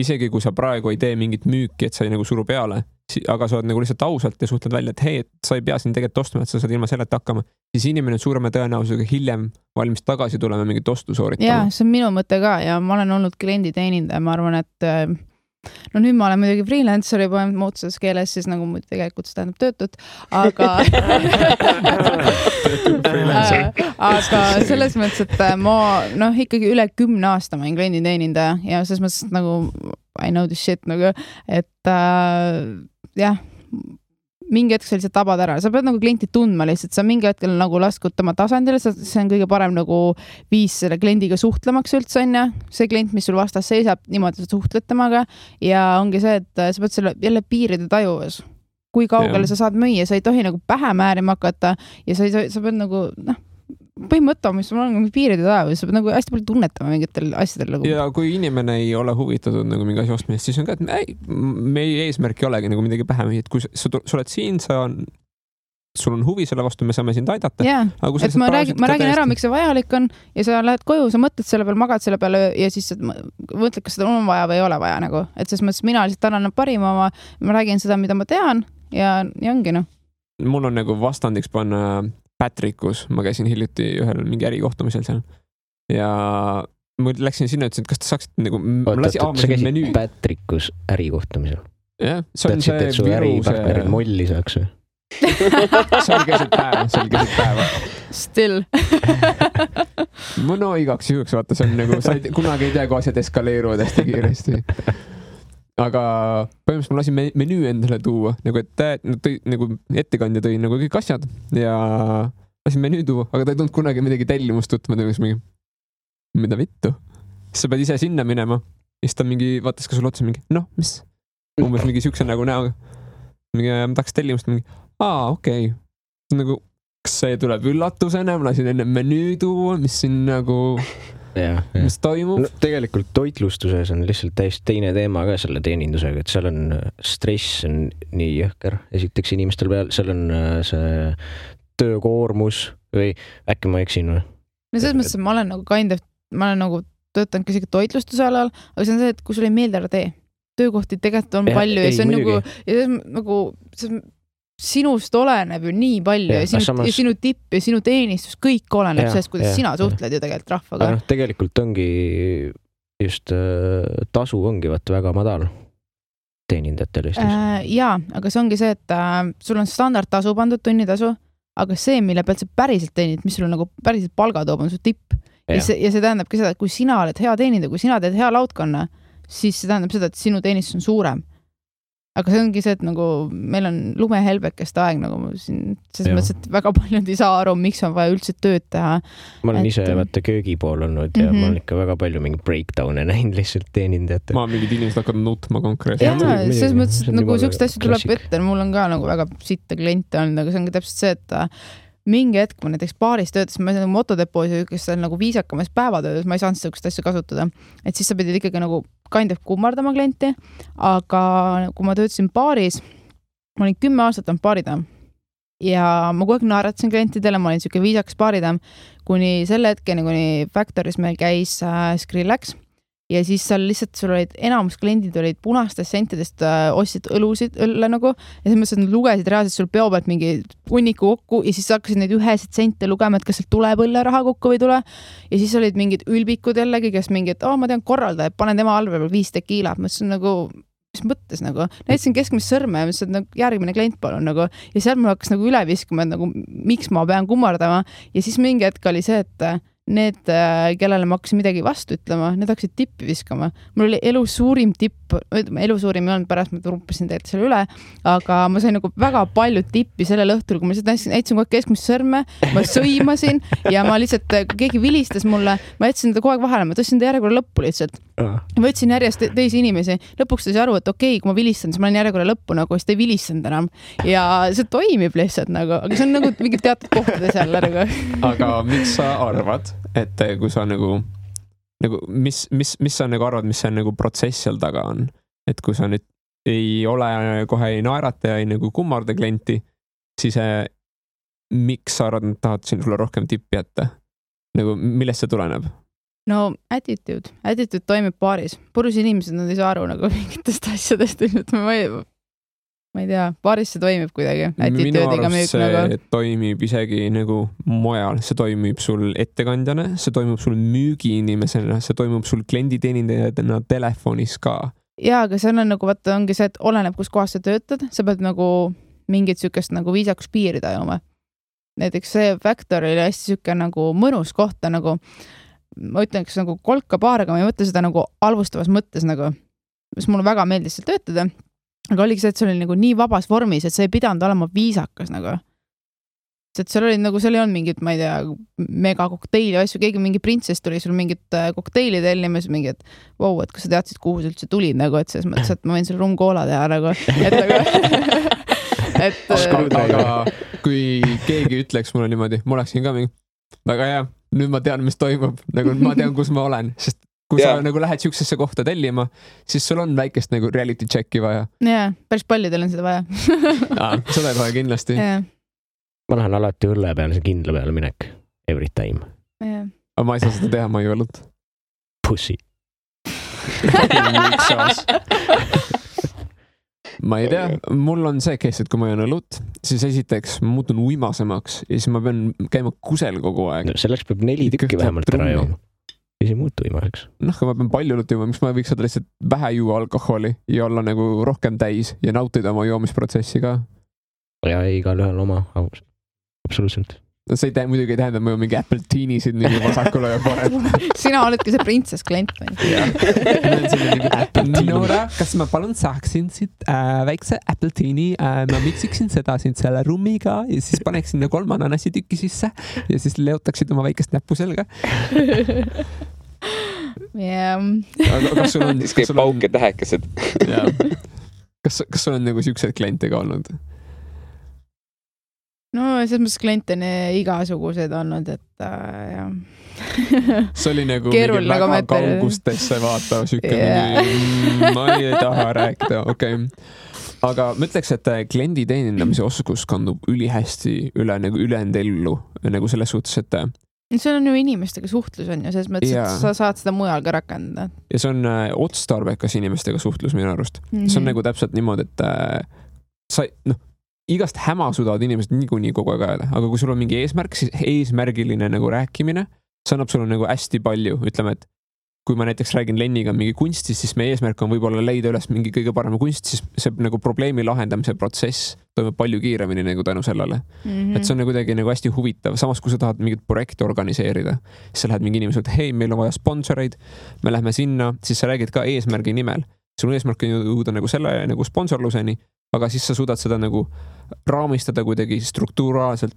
isegi kui sa praegu ei tee mingit müüki, et sa ei nagu suru peale, aga sa oled nagu lihtsalt ausalt ja suhtled välja, et hei, et sa ei pea siin tegelikult ostma, et sa saad ilma selleta hakkama, siis inimene on suurema tõenäosusega hiljem valmis tagasi tulema mingit ostu sooritama. Jaa, see on minu mõte ka ja ma olen olnud klienditeenindaja, ma arvan, et no nüüd ma olen muidugi freelancer juba muutuses keeles, siis nagu tegelikult see tähendab töötut, aga selles mõttes, et ma ikkagi üle 10 aasta ma olen klienditeenindaja ja selles mõttes nagu I know this shit nagu, et jah, mingi hetk sa lihtsalt tabad ära, sa pead nagu klienti tundma lihtsalt, sa mingi hetkel nagu laskud tema tasandile, see on kõige parem nagu viis selle kliendiga suhtlemaks üldse on ja see klient, mis sul vastas seisab, niimoodi sa suhtled temaga ja ongi see, et sa pead selle jälle piiride tajuvas. Kui kaugele sa saad müüa, sa ei tohi nagu pähe määrima hakata ja sa pead nagu, põhimõtta, mis sul on piiride tajuvas, sa pead nagu hästi palju tunnetama mingitel asjadel. Nagu. Ja kui inimene ei ole huvitatud nagu mingi asi ostmist, siis on ka, et meie eesmärk ei olegi nagu midagi pähe müüa, et kui sa oled siin, sul on huvi selle vastu, me saame sind aidata. Jaa, et ma räägin ära, miks see vajalik on ja sa lähed koju, sa mõtled selle peale, magad selle peale ja siis mõtled, kas seda on vaja või ei ole vaja nagu. Et selles mõttes mina lihtsalt annan parima oma, ma räägin seda, mida ma tean ja ongi noh. Mul on nagu vastandiks panna Patrickus, ma käisin hiljuti ühel mingi ärikohtumisel seal ja ma läksin sinna, ütlesin, et kas te saaksite nagu... sa käisid Patrickus ärikohtumisel? Jah, see on see su äripartnerid molli saaks või? See oli keset päeva. Still. No igaks juhuks, vaata, see on nagu, sa kunagi ei tea, kui asjad eskaleeruvad hästi kiiresti. Aga põhimõtteliselt ma lasin menüü endale tuua, nagu et nagu ettekandja tõi nagu kõik asjad ja lasin menüü tuua, aga ta ei tulnud kunagi midagi tellimust tutma, mingi, mida vittu. Siis sa pead ise sinna minema. Siis ta mingi, vaatas ka sulle otsa mingi, noh, mis? Umbes mingi siukse nagu näoga. Mingi, ma tahaks tellimust mingi, okei. Nagu, kas see tuleb üllatusena, ma lasin enne menüü tuua, mis siin nagu, mis toimub? No, tegelikult toitlustuses on lihtsalt täiesti teine teema ka selle teenindusega, et seal on stress on nii jõhker. Esiteks inimestel peal, seal on see töökoormus või äkki ma eksin või? No selles mõttes, et ma olen nagu töötanud ka isegi toitlustuse alal, aga see on see, et kui sul ei meeldi ära tee. Töökohti tegelikult on palju ja see on nagu sinust oleneb ju nii palju ja sinu tipp ja sinu teenistus, kõik oleneb sellest, kuidas sina suhtled ju tegelikult rahvaga. No, tegelikult ongi just tasu ongi väga madal teenindajatel Eestis. Jaa, aga see ongi see, et sul on standardtasu pandud, tunnitasu, aga see, mille pealt sa päriselt teenid, mis sul nagu päriselt palga toob, on su tipp. Ja see tähendabki seda, et kui sina oled hea teenindaja, kui sina teed hea laudkonna, siis see tähendab seda, et sinu teenistus on suurem. Aga see ongi see, et nagu meil on lumehelbekest aeg, nagu siin, selles mõttes, et väga paljud ei saa aru, miks on vaja üldse tööd teha. Ma olen ise vaata köögi pool olnud ja ma olen ikka väga palju mingi breakdown'e näinud lihtsalt teenindajate. Ma mingid inimesed hakkavad nutma konkreetselt. Jaa, selles mõttes, et nagu siukest asju tuleb ette, mul on ka nagu väga sitta kliente olnud, aga see ongi täpselt see, et mingi hetk ma näiteks baaris töötas, ma olen motodepoos ja kes on nagu viisakamas päevatöödes, ma ei saanud sellist asja kasutada. Et siis sa pidid ikkagi nagu kind of kummardama klienti, aga kui ma töötasin baaris, ma olin 10 aastat on baaridam ja ma kogu aeg naeratasin klientidele, ma olin siuke viisakas baaridam, kuni selle hetkeni, kuni Factoris meil käis Skrillex ja siis seal lihtsalt sul olid enamus kliendid olid punastest sentidest ostsid õlle nagu ja selles mõttes, et nad lugesid reaalselt sul peo pealt mingi hunniku kokku ja siis hakkasid neid ühesid sente lugema, et kas sealt tuleb õlle raha kokku või tule ja siis olid mingid ülbikud jällegi, kes mingi, et ma tean korraldaja, panen tema allve peal 5 tekiilat, ma ütlesin nagu mis mõttes nagu, näitasin keskmist sõrme ja mõtlesin, et nagu järgmine klient palun nagu ja seal mul hakkas nagu üle viskuma, et nagu miks ma pean kummardama ja siis mingi hetk oli see, et need, kellele ma hakkasin midagi vastu ütlema, need hakkasid tippi viskama. Mul oli elu suurim tipp, elu suurim ei olnud, pärast ma rumpasin tegelikult selle üle, aga ma sain nagu väga palju tippi sellel õhtul, kui ma lihtsalt näitasin kogu aeg keskmist sõrme, ma sõimasin ja ma lihtsalt, keegi vilistas mulle, ma jätsin ta kogu aeg vahele, ma tõstsin ta järjekorra lõppu lihtsalt. Ma võtsin järjest teisi inimesi, lõpuks ta sai aru, et okei, kui ma vilistan, siis ma olen järjekorra lõppu nagu, siis ta ei vilistanud enam ja see toimib lihtsalt nagu, aga see on nagu mingi teatud kohtades jälle nagu. Aga miks sa arvad, et kui sa nagu mis sa nagu arvad, mis see nagu protsess seal taga on, et kui sa nüüd ei ole kohe ei naerata ja ei nagu kummarda klienti, siis miks sa arvad, et tahad sinule rohkem tippi jätta? Nagu millest see tuleneb? No attitude toimib baaris. Purus inimesed, nad ei saa aru nagu mingitest asjadest. Ma ei tea, baaris see toimib kuidagi. Minu arust see nagu toimib isegi nagu mujal. See toimib sul ettekandjana, see toimib sul müügiinimesena, see toimib sul klienditeenindajana telefonis ka. Jaa, aga see on nagu, vaata, ongi see, et oleneb, kus kohas sa töötad. Sa pead nagu mingit sükest nagu viisakus piiri tajuma. Näiteks see Factor oli hästi süke nagu mõnus kohta nagu ma ütlen, kas nagu kolka baar, aga ma ei mõtle seda nagu alvustavas mõttes nagu, mis mulle väga meeldis seal töötada, aga oligi see, et see oli nagu nii vabas vormis, et see ei pidanud olema viisakas nagu. Et seal oli nagu, seal ei olnud mingit, ma ei tea, mega kokteili asju, keegi mingi printsess tuli sul mingit kokteili tellimas, mingi, et wow, et kas sa teadsid, kuhu sa üldse tulid nagu, et selles mõttes, et ma võin selle rumkoola teha nagu, et nagu aga kui keegi ütleks mulle niimoodi, ma oleksin ka mingi, väga hea, nüüd ma tean, mis toimub, nagu ma tean, kus ma olen, sest kui sa nagu lähed siuksesse kohta tellima, siis sul on väikest nagu reality checki vaja. Jaa, päris paljudel on seda vaja. Seda ei vaja kindlasti. Ma lähen alati õlle peale, see kindla peale minek. Every time. Aga ma ei saa seda teha, ma ei õlut. Pussy. Ma ei tea, mul on see case, et kui ma jään õlut, siis esiteks ma muutun uimasemaks ja siis ma pean käima kusel kogu aeg. No, selleks peab 4 tükki vähemalt ära jooma. Ja see muutu uimaseks. Noh, kui ma pean palju õlut juuma, miks ma võiks saada lihtsalt vähe juua alkoholi ja olla nagu rohkem täis ja nautida oma joomisprotsessi ka. Ja igal ühel oma, absoluutselt. see muidugi ei tähenda, et ma mingi Apple Teenisid nii vasakule ja paremale. Sina oledki see printsess klient või? Nora, kas ma palun saaksin siit väikse Apple Teeni, ma miksiksin seda siin selle rummiga ja siis paneksin 3 ananassi tükki sisse ja siis leotaksid oma väikest näppu selga. Kas sul on... Siis käib pauk ja tähekesed. Kas sul on nagu siuksed kliente ka olnud? No selles mõttes kliente on igasugused olnud, et jah. See oli nagu mingi väga kaugustesse vaatav süke, ma ei taha rääkida, okei. Aga ma ütleks, et kliendi teenindamise oskus kandub ülihästi üle nagu ülejäänud ellu nagu selles suhtes, et see on ju inimestega suhtlus on ju, selles mõttes, et sa saad seda mujal ka rakendada. Ja see on otstarbekas inimestega suhtlus minu arust. See on nagu täpselt niimoodi, et sa, igast häma sudavad inimesed niikuinii kogu aeg ajada, aga kui sul on mingi eesmärk, siis eesmärgiline nagu rääkimine, see annab sulle nagu hästi palju, ütleme, et kui ma näiteks räägin Lenniga mingi kunstist, siis meie eesmärk on võib-olla leida üles mingi kõige parema kunst, siis see nagu probleemi lahendamise protsess toimub palju kiiremini nagu tänu sellele. Et see on nagu kuidagi nagu hästi huvitav. Samas, kui sa tahad mingit projekti organiseerida, siis sa lähed mingi inimesed, hei, meil on vaja sponsoreid, me lähme sinna, siis sa räägid ka eesmärgi nimel. Sul eesmärk on jõuda nagu selle nagu sponsorluseni, aga siis sa suudad seda nagu raamistada kuidagi strukturaalselt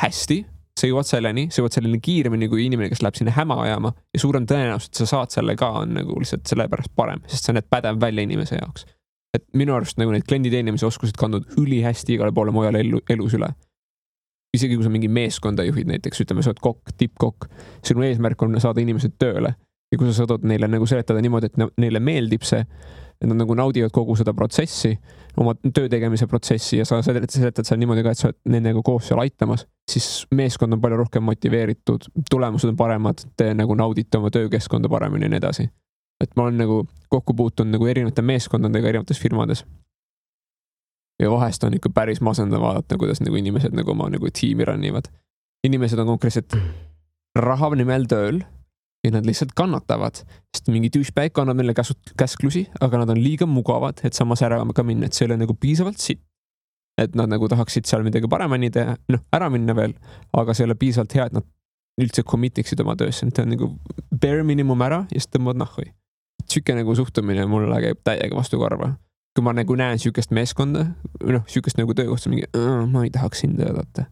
hästi, sa jõuad selleni kiiremini kui inimene, kes läheb sinna häma ajama ja suurem tõenäosus, et sa saad selle ka on nagu lihtsalt selle pärast parem, sest sa näed pädev välja inimese jaoks. Et minu arust nagu need kliendi teenimise oskused kandud ülihästi igale poole mujale elus üle. Isegi kui sa mingi meeskonda juhid näiteks, ütleme, sa oled kokk, tippkokk, sinu eesmärk on saada inimesed tööle ja kui sa saadad neile nagu seletada niimoodi, et neile meeldib see, et nad nagu naudivad kogu seda protsessi, oma töö tegemise protsessi ja sa seletad seal niimoodi ka, et sa oled nendega koos seal aitamas, siis meeskond on palju rohkem motiveeritud, tulemused on paremad, te nagu naudite oma töökeskkonda paremini ja nii edasi. Et ma olen nagu kokku puutunud nagu erinevate meeskondadega erinevates firmades. Ja vahest on ikka päris masendav vaadata, kuidas nagu inimesed nagu oma nagu tiimi rannivad. Inimesed on konkreetselt raha nimel tööl ja nad lihtsalt kannatavad, sest mingi douchebag annab neile käsklusi, aga nad on liiga mugavad, et samas ära ka minna, et see ei ole nagu piisavalt sitt. Et nad nagu tahaksid seal midagi paremini teha, ära minna veel, aga see ei ole piisavalt hea, et nad üldse commitiksid oma töösse, et on nagu bare minimum ära ja siis tõmbavad nahhui. Süke nagu suhtumine mulle käib täiega vastu karva. Kui ma nagu näen sükest meeskonda, sükest nagu töökohta, mingi, ma ei tahaks sind töötada.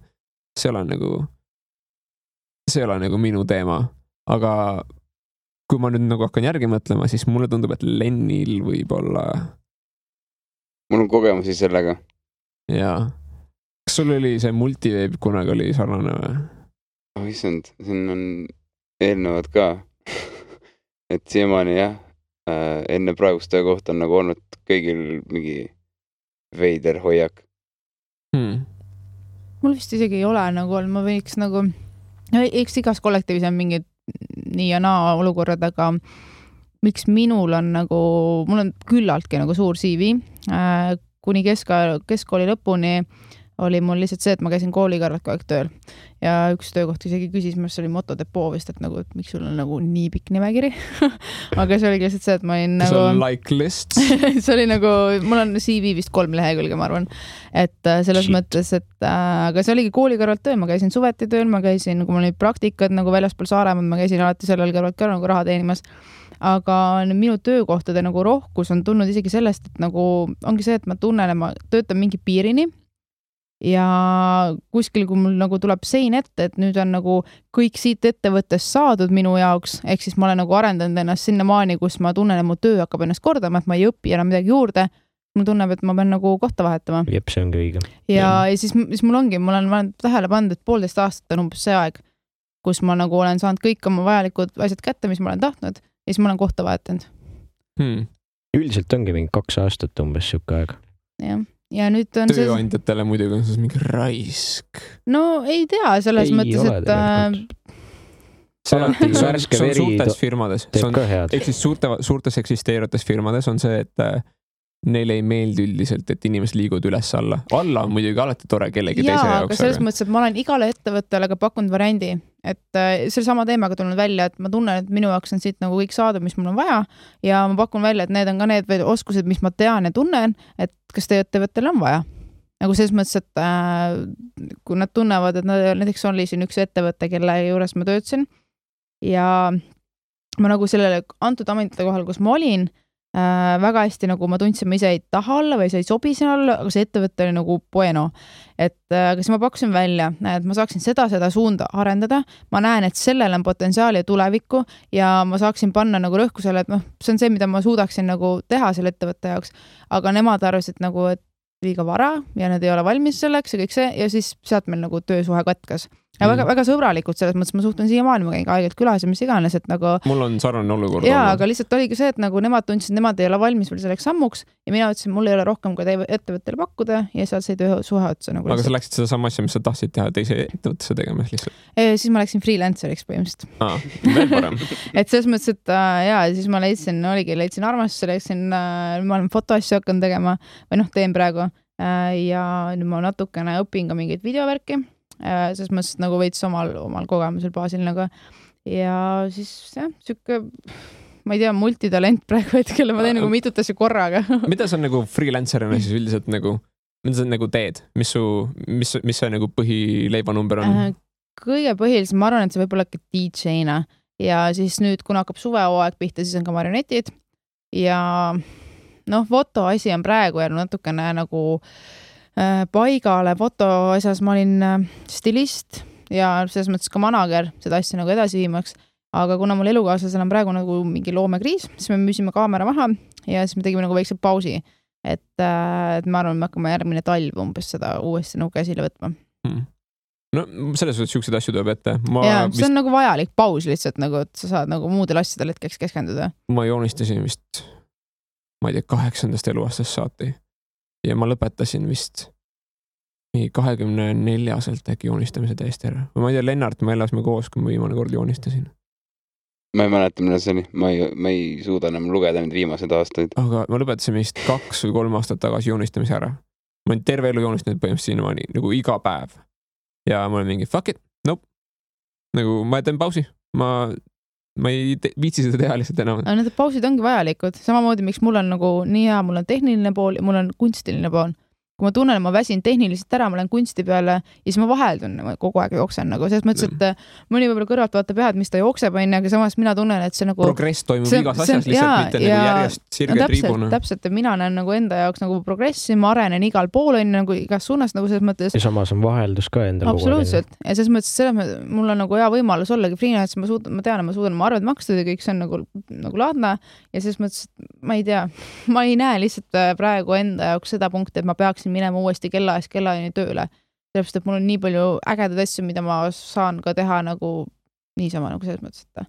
See ei ole nagu minu teema. Aga kui ma nüüd nagu hakkan järgi mõtlema, siis mulle tundub, et Lennil võib-olla... Mul on kogemusi sellega. Jaa. Kas sul oli see multiveeb kunagi oli sarnane või? Issand, siin on eelnevad ka. Et siiamaani jah, enne praegust töökohta on nagu olnud kõigil mingi veider hoiak. Mul vist isegi ei ole nagu olnud, ma võiks nagu... Eks igas kollektiivis on mingid nii ja naa olukorrad, aga miks minul on nagu, mul on küllaltki nagu suur CV, kuni keskkooli lõpuni oli mul lihtsalt see, et ma käisin kooli kõrvalt kogu aeg tööl ja üks töökoht isegi küsis, mis oli motodepoo vist, et nagu, et miks sul on nagu nii pikk nimekiri aga see oli lihtsalt see, et ma olin nagu... See on like list? see oli nagu, mul on CV vist 3 lehekülge, ma arvan, et selles mõttes, et aga see oligi kooli kõrvalt tööl, ma käisin suveti tööl, ma käisin, kui mul olid praktikad nagu väljaspool Saaremaad, ma käisin alati sellel kõrvalt ka nagu raha teenimas, aga minu töökohtade nagu rohkus on tulnud isegi sellest, et nagu ongi see, et ma tunnen, et ma töötan mingi piirini ja kuskil, kui mul nagu tuleb sein ette, et nüüd on nagu kõik siit ettevõttest saadud minu jaoks, ehk siis ma olen nagu arendanud ennast sinnamaani, kus ma tunnen, et mu töö hakkab ennast kordama, et ma ei õpi enam midagi juurde, mul tunneb, et ma pean nagu kohta vahetama. Jep, see ongi õige. Ja siis mul ongi, mul on tähele pandud, et 1,5 aastat on umbes see aeg, kus ma nagu olen saanud kõik oma vajalikud asjad kätte, mis ma olen tahtnud, ja siis ma olen kohta vahetanud. Üldiselt ongi mingi 2 aastat umbes siuke aeg. Jah. Ja nüüd on tööandjatele muidugi on siis mingi raisk. No ei tea, selles mõttes, et... See on suurtes firmades. Ehk siis suurtes eksisteerivates firmades on see, et neile ei meeldi üldiselt, et inimesed liiguvad üles alla. Alla on muidugi alati tore kellegi teise jaoks. Aga selles mõttes, et ma olen igale ettevõttele ka pakkunud variandi, et selle sama teemaga tulnud välja, et ma tunnen, et minu jaoks on siit nagu kõik saadud, mis mul on vaja ja ma pakun välja, et need on ka need oskused, mis ma tean ja tunnen, et kas teie ettevõttele on vaja. nagu selles mõttes, et kui nad tunnevad, et näiteks oli siin üks ettevõte, kelle juures ma töötasin ja ma nagu sellele antud ametite kohal, kus ma olin, väga hästi nagu ma tundsin, ma ise ei taha olla või sa ei sobi siin olla, aga see ettevõte oli nagu bueno. Et kas ma pakkusin välja, et ma saaksin seda suunda arendada, ma näen, et sellel on potentsiaali ja tulevikku ja ma saaksin panna nagu rõhku selle, et see on see, mida ma suudaksin nagu teha selle ettevõtte jaoks, aga nemad arvasid nagu, et liiga vara ja nad ei ole valmis selleks ja kõik see ja siis sealt meil nagu töösuhe katkas. Ja väga sõbralikud selles mõttes, ma suhtun siiamaani, ma käin aegelt külas ja mis iganes, et nagu... Mul on sarnane olukord. Jaa, aga lihtsalt oligi see, et nagu nemad tundsid, nemad ei ole valmis veel selleks sammuks ja mina ütlesin, mul ei ole rohkem kui ettevõttele pakkuda ja sealt sai töösuhe otsa. Nagu aga sa läksid seda sama asja, mis sa tahtsid teha teise ettevõttesse tegemas lihtsalt? Siis ma läksin freelanceriks põhimõtteliselt. Veel parem. Et selles mõttes, et jaa, siis ma leidsin armastuse, ma olen fotoasju hakanud tegema või teen praegu ja nüüd ma natukene õpin ka mingeid videovärki. Selles mõttes nagu veits omal kogemusel baasil nagu. Ja siis sükke, ma ei tea, multitalent praegu hetkel, ma teen nagu mitut asja korraga. Mida sa nagu freelancerina siis üldiselt nagu, mida sa nagu teed? Mis see nagu põhileibanumber on? Kõige põhilisem, ma arvan, et see võib olla DJ-na ja siis nüüd, kuna hakkab suvehooaeg pihta, siis on ka marionetid ja foto asi on praegu jäänud natukene nagu paigale foto asjas ma olin stilist ja selles mõttes ka manager seda asja nagu edasi viimaks, aga kuna mul elukaaslasel on praegu nagu mingi loomekriis, siis me müüsime kaamera maha ja siis me tegime nagu väikse pausi, et ma arvan, me hakkame järgmine talv umbes seda uuesti nagu käsile võtma. No selles suhtes siukseid asju tuleb ette. See on nagu vajalik paus lihtsalt, nagu, et sa saad nagu muudel asjadel hetkeks keskenduda. Ma joonistasin vist, ma ei tea, 8. eluaastast saati. Ja ma lõpetasin vist 24-selt äkki joonistamise täiesti ära. Ma ei tea, Lennart, me elasime koos, kui ma viimane kord joonistasin. Ma ei mäleta, mida see oli. Ma ei suuda enam lugeda need viimased aastaid. Aga ma lõpetasin vist 2 või 3 aastat tagasi joonistamise ära. Ma olen terve elu joonistanud põhimõtteliselt sinnamaani nagu iga päev. Ja ma olen mingi, fuck it, nope. Nagu ma teen pausi. Ma ei viitsi seda teha lihtsalt enam. Need pausid ongi vajalikud. Samamoodi, miks mul on nagu nii hea, mul on tehniline pool ja mul on kunstiline pool. Kui ma tunnen, ma väsin tehniliselt ära, ma olen kunsti peale ja siis ma vaheldun kogu aeg jooksen. Nagu selles mõttes, et mõni võib-olla kõrvalt vaatab jah, et mis ta jookseb, aga samas mina tunnen, et see nagu... Progress toimub igas asjas lihtsalt, mitte nagu järjest sirge triibuna. Täpselt, et mina näen nagu enda jaoks nagu progressi, ma arenen igal pool, nagu igas suunas nagu selles mõttes. Ja samas on vaheldus ka endal. Absoluutselt. Ja selles mõttes, mul on nagu hea võimalus ollagi freelance, ma tean, ma arvan, et makstud ja kõik see on nagu laadne ja selles mõttes, ma ei tea, ma ei näe lihtsalt praegu enda jaoks seda punkti, et ma peaksin minema uuesti kellaajani tööle. Sellepärast, et mul on nii palju ägedaid asju, mida ma saan ka teha nagu niisama nagu selles mõttes, et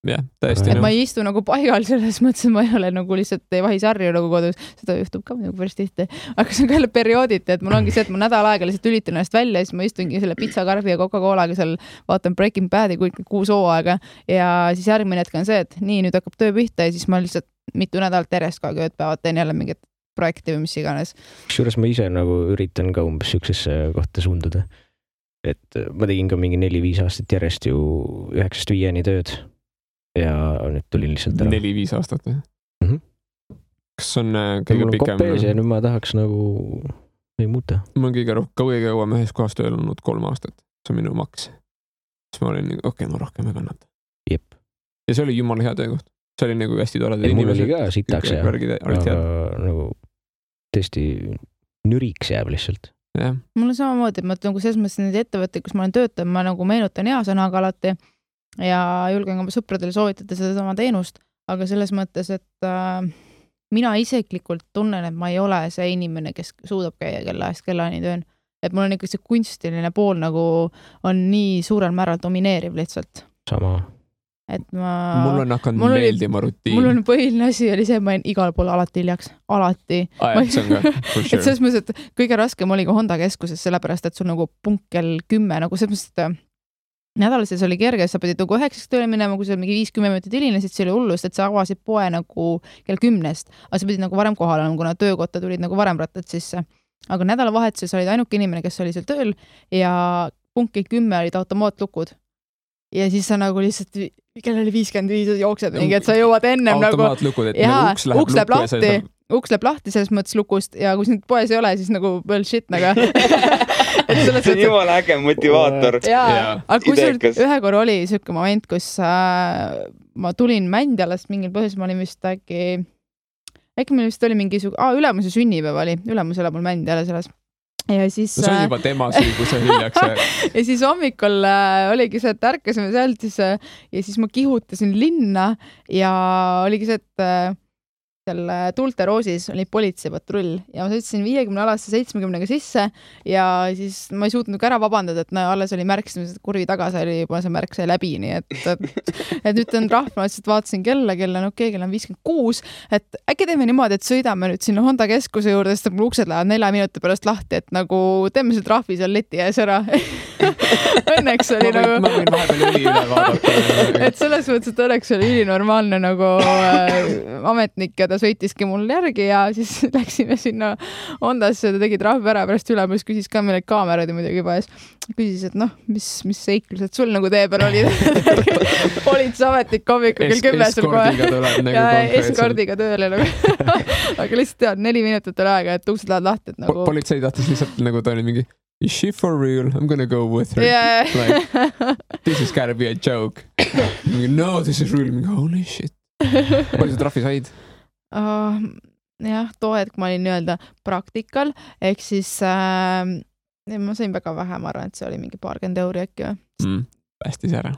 jah, täiesti. Et ma ei istu nagu paigal selles mõttes, et ma ei ole nagu lihtsalt ei vahi sarju nagu kodus. Seda juhtub ka nagu päris tihti. Aga see on ka jälle periooditi, et mul ongi see, et ma nädal aega lihtsalt ülitan ennast välja ja siis ma istungi selle pizzakarbi ja Coca-Colaga seal vaatan Breaking Badi 6 hooaega ja siis järgmine hetk on see, et nii, nüüd hakkab töö pihta ja siis ma lihtsalt mitu nädalat järjest ka ööpäevad teen jälle mingit projekti või mis iganes. Kusjuures ma ise nagu üritan ka umbes siuksesse kohta suunduda. Et ma tegin ka mingi 4-5 aastat järjest ju 9-5 tööd ja nüüd tulin lihtsalt ära. 4-5 aastat või? Kas on kõige pikem? Mul on kopees ja nüüd ma tahaks nagu ei muuta. Ma on kõige kauem ühes kohas tööl olnud 3 aastat. See on minu maks. Siis ma olin okei, ma rohkem ei kannata. Jep. Ja see oli jumala hea töökoht. See oli nagu hästi tore. Mul oli ka sitaks ja nagu tõesti nüriks jääb lihtsalt. Ja. Mul on samamoodi, et ma nagu selles mõttes need ettevõtted, kus ma olen töötanud, ma nagu meenutan hea sõnaga alati ja julgen oma sõpradele soovitada seda sama teenust, aga selles mõttes, et mina isiklikult tunnen, et ma ei ole see inimene, kes suudab käia kellaajast kellani tööl. Et mul on ikka see kunstiline pool nagu on nii suurel määral domineeriv lihtsalt. Sama. Et mul on hakanud meeldima rutiin. Mul on põhiline asi oli see, et ma olin igal pool alati hiljaks. Alati. See on ka, for sure. Et selles mõttes, et kõige raskem oli ka Honda keskuses, sellepärast, et sul nagu punkt kell 10, nagu selles mõttes, et nädalases oli kerge, sa pidid nagu 9 tööle minema, kui sa mingi 5-10 minutit hilinesid, see oli hullust, et sa avasid poe nagu kell 10, aga sa pidid nagu varem kohal olema, kuna töökotta tulid nagu varem rattad sisse. Aga nädalavahetuses olid ainuke inimene, kes oli seal tööl ja punkt kell 10 olid automaatlukud. Ja siis sa nagu lihtsalt, kell oli 55 jooksed mingi, et sa jõuad ennem automaatlukud, et nagu uks läheb lahti uks läheb lahti selles mõttes lukust ja kui sind poes ei ole, siis nagu bullshit nagu. See on jumala äge motivaator. Aga kusjuures ühe korra oli siuke moment, kus ma tulin Mändjalast mingil põhjusel, ma olin vist äkki meil vist oli mingi ülemuse sünnipäev oli, ülemus elab mul Mändjala selles. Ja siis, see on juba tema süü, kui see hiljaks. Ja siis hommikul oligi see, et ärkasime sealt ja siis ma kihutasin linna ja oligi see, et seal Tuulte Roosis oli politseipatrull ja ma sõitsin 50-alasse 70-ga sisse ja siis ma ei suutnud ära vabandada, et alles oli märk, kurvi tagas oli juba see märk sai läbi, nii et nüüd on trahv, ma lihtsalt vaatasin kella on okei, kell on 56, et äkki teeme niimoodi, et sõidame nüüd sinna Honda keskuse juurde, sest mul uksed lähevad 4 minuti pärast lahti, et nagu teeme see trahvi seal leti ees ära. Õnneks oli ma võin vahepeal üli üle vaadata. Et selles mõttes, et õnneks oli ülinormaalne nagu ametnik ja ta sõitiski mul järgi ja siis läksime sinna Hondasse, ta tegi trahvi ära, pärast ülemus küsis ka meile kaamerad ja muidugi juba ees. Küsis, et mis seiklused sul nagu tee peal oli. Politseametnik hommikul kell 10 sul kohe. Ja eskordiga tööle nagu. Aga lihtsalt tead, 4 minutit oli aega, et uksed lähevad lahti. Politsei tahtis lihtsalt nagu ta oli mingi is she for real? I'm gonna go with her. Yeah. Like, this has gotta be a joke. No, this is real. Holy shit. Palju sa trahvi said? Jah, too hetk ma olin nii-öelda praktikal, ehk siis ma sain väga vähe, ma arvan, et see oli mingi 20 euri äkki või? Päästis ära.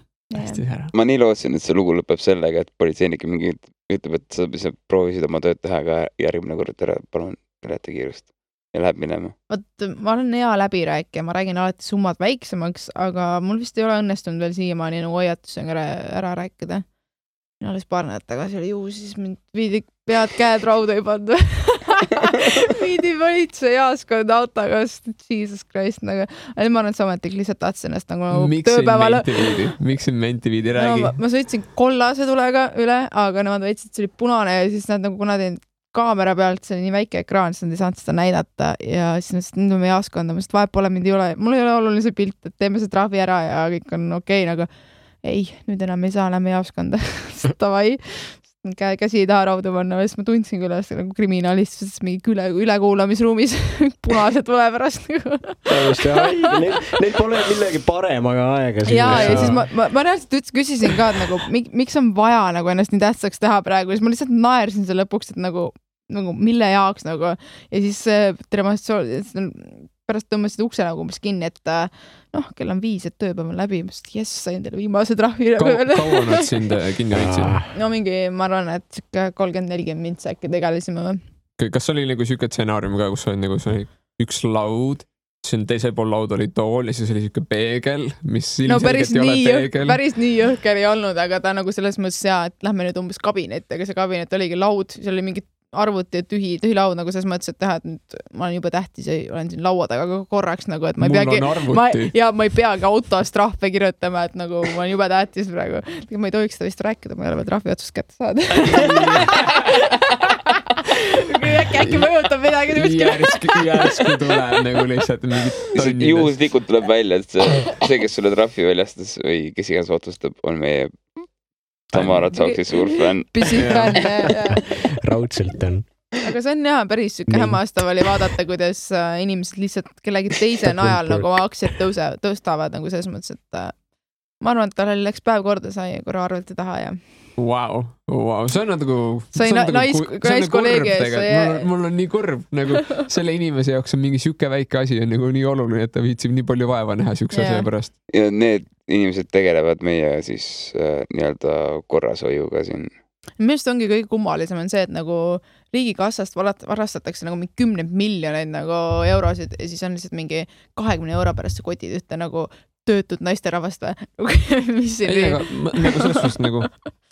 Ma nii lootsin, et see lugu lõpeb sellega, et politseinik mingi ütleb, et sa proovisid oma tööd teha, aga järgmine kord palun ületa kiirust ja läheb minema. Ma olen hea läbirääkija, ma räägin alati summad väiksemaks, aga mul vist ei ole õnnestunud veel siiamaani nagu hoiatusega ära rääkida. Alles paar nädalt tagasi oli juhus, siis mind viidi pead käed rauda ei pannud. Viidi politsei jaaskond autoga, Jesus Christ. Nagu. Ma arvan, et see ametlik lihtsalt tahtsin ennast nagu tööpäeval. Miks siin menti viidi, räägi? No, ma sõitsin kollase tulega üle, aga nemad väitsid, et see oli punane ja siis nad nagu kuna tein kaamera pealt, see oli nii väike ekraan, siis nad ei saanud seda näidata ja siis nüüd on meie jaaskond, ma vahet pole, mind ei ole, mul ei ole oluline see pilt, et teeme see trahvi ära ja kõik on okei, nagu ei, nüüd enam ei saa, lähme jaaskonda. Tavai, käsi ei taha raudu panna, sest ma tundsin küll nagu kriminalistis mingi ülekuulamisruumis punased tule pärast. Neil pole millegi paremaga aega. Ja siis ma reaalselt küsisin ka, et nagu, miks on vaja nagu ennast nii tähtsaks teha praegu, siis ma lihtsalt naersin selle lõpuks, et nagu mille jaoks nagu ja siis pärast tõmbasid ukse nagu umbes kinni, et kell on 5, et tööpäev on läbi, sain teile viimase trahvi. Kaua nad sind kinni hoidsid? No mingi, ma arvan, et 30-40 mintsa äkki tegelisime või. Kas oli nagu siuke stsenaarium ka, kus oli nagu üks laud, siin teisel pool laud oli tool ja siis oli siuke peegel, mis ilmselgelt ei ole peegel. Päris nii jõhker ei olnud, aga ta nagu selles mõttes et lähme nüüd umbes kabinet, aga see kabinet oligi laud, seal oli mingi arvuti ja tühi laud nagu selles mõttes, et teha, et nüüd ma olen juba tähtis ja olen siin laua taga korraks nagu, et ma ei peagi autos trahve kirjutama, et nagu ma olen juba tähtis praegu. Ma ei tohiks seda vist rääkida, ma ei ole veel trahvi otsust kätte saada. Äkki mõjutab midagi. Järsku tuleb nagu lihtsalt mingit tonnidest. Juhuslikult tuleb välja, et see, kes sulle trahvi väljastas või kes iganes otsustab, on meie Tamara Tsaksi suur fänn. Pisifänn, raudselt on. Aga see on jah, päris sükke hämmastav oli vaadata, kuidas inimesed lihtsalt kellegi teise najal nagu aktsiad tõstavad nagu selles mõttes, et ma arvan, et tal läks päev korda, sai korra arvelt taha ja Wow. See on nagu naiskolleegi ees. Mul on nii kurb, nagu selle inimese jaoks on mingi siuke väike asi on nagu nii oluline, et ta viitsib nii palju vaeva näha siukse asja pärast. Ja need inimesed tegelevad meie siis nii-öelda korrashoiuga siin. Millest ongi kõige kummalisem on see, et nagu riigikassast varastatakse nagu 10 miljoneid nagu eurosid ja siis on lihtsalt mingi 20 euro pärast see kotid ühte nagu töötud naisterahvast või? Mis siin ei, aga nagu selles suhtes nagu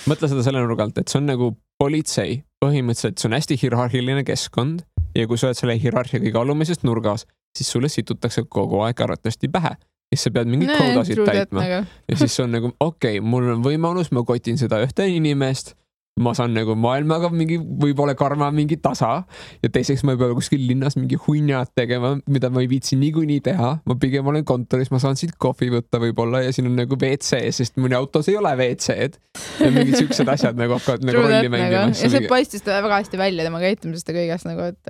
mõtle seda selle nurgalt, et see on nagu politsei. Põhimõtteliselt see on hästi hierarhiline keskkond ja kui sa oled selle hierarhia kõige alumisest nurgas, siis sulle situtakse kogu aeg arvatavasti pähe. Siis sa pead mingid koodasid täitma. Ja siis on nagu, okei, mul on võimalus, ma kotin seda ühte inimest, ma saan nagu maailmaga mingi võib-olla karma mingi tasa ja teiseks ma ei pea kuskil linnas mingi hunnad tegema, mida ma ei viitsi niikuinii teha. Ma pigem olen kontoris, ma saan siit kohvi võtta võib-olla ja siin on nagu WC, sest mõni autos ei ole WC-d ja mingid siuksed asjad nagu hakkavad nagu rolli mängima. Ja see paistis väga hästi välja tema käitumisest ja kõigest nagu, et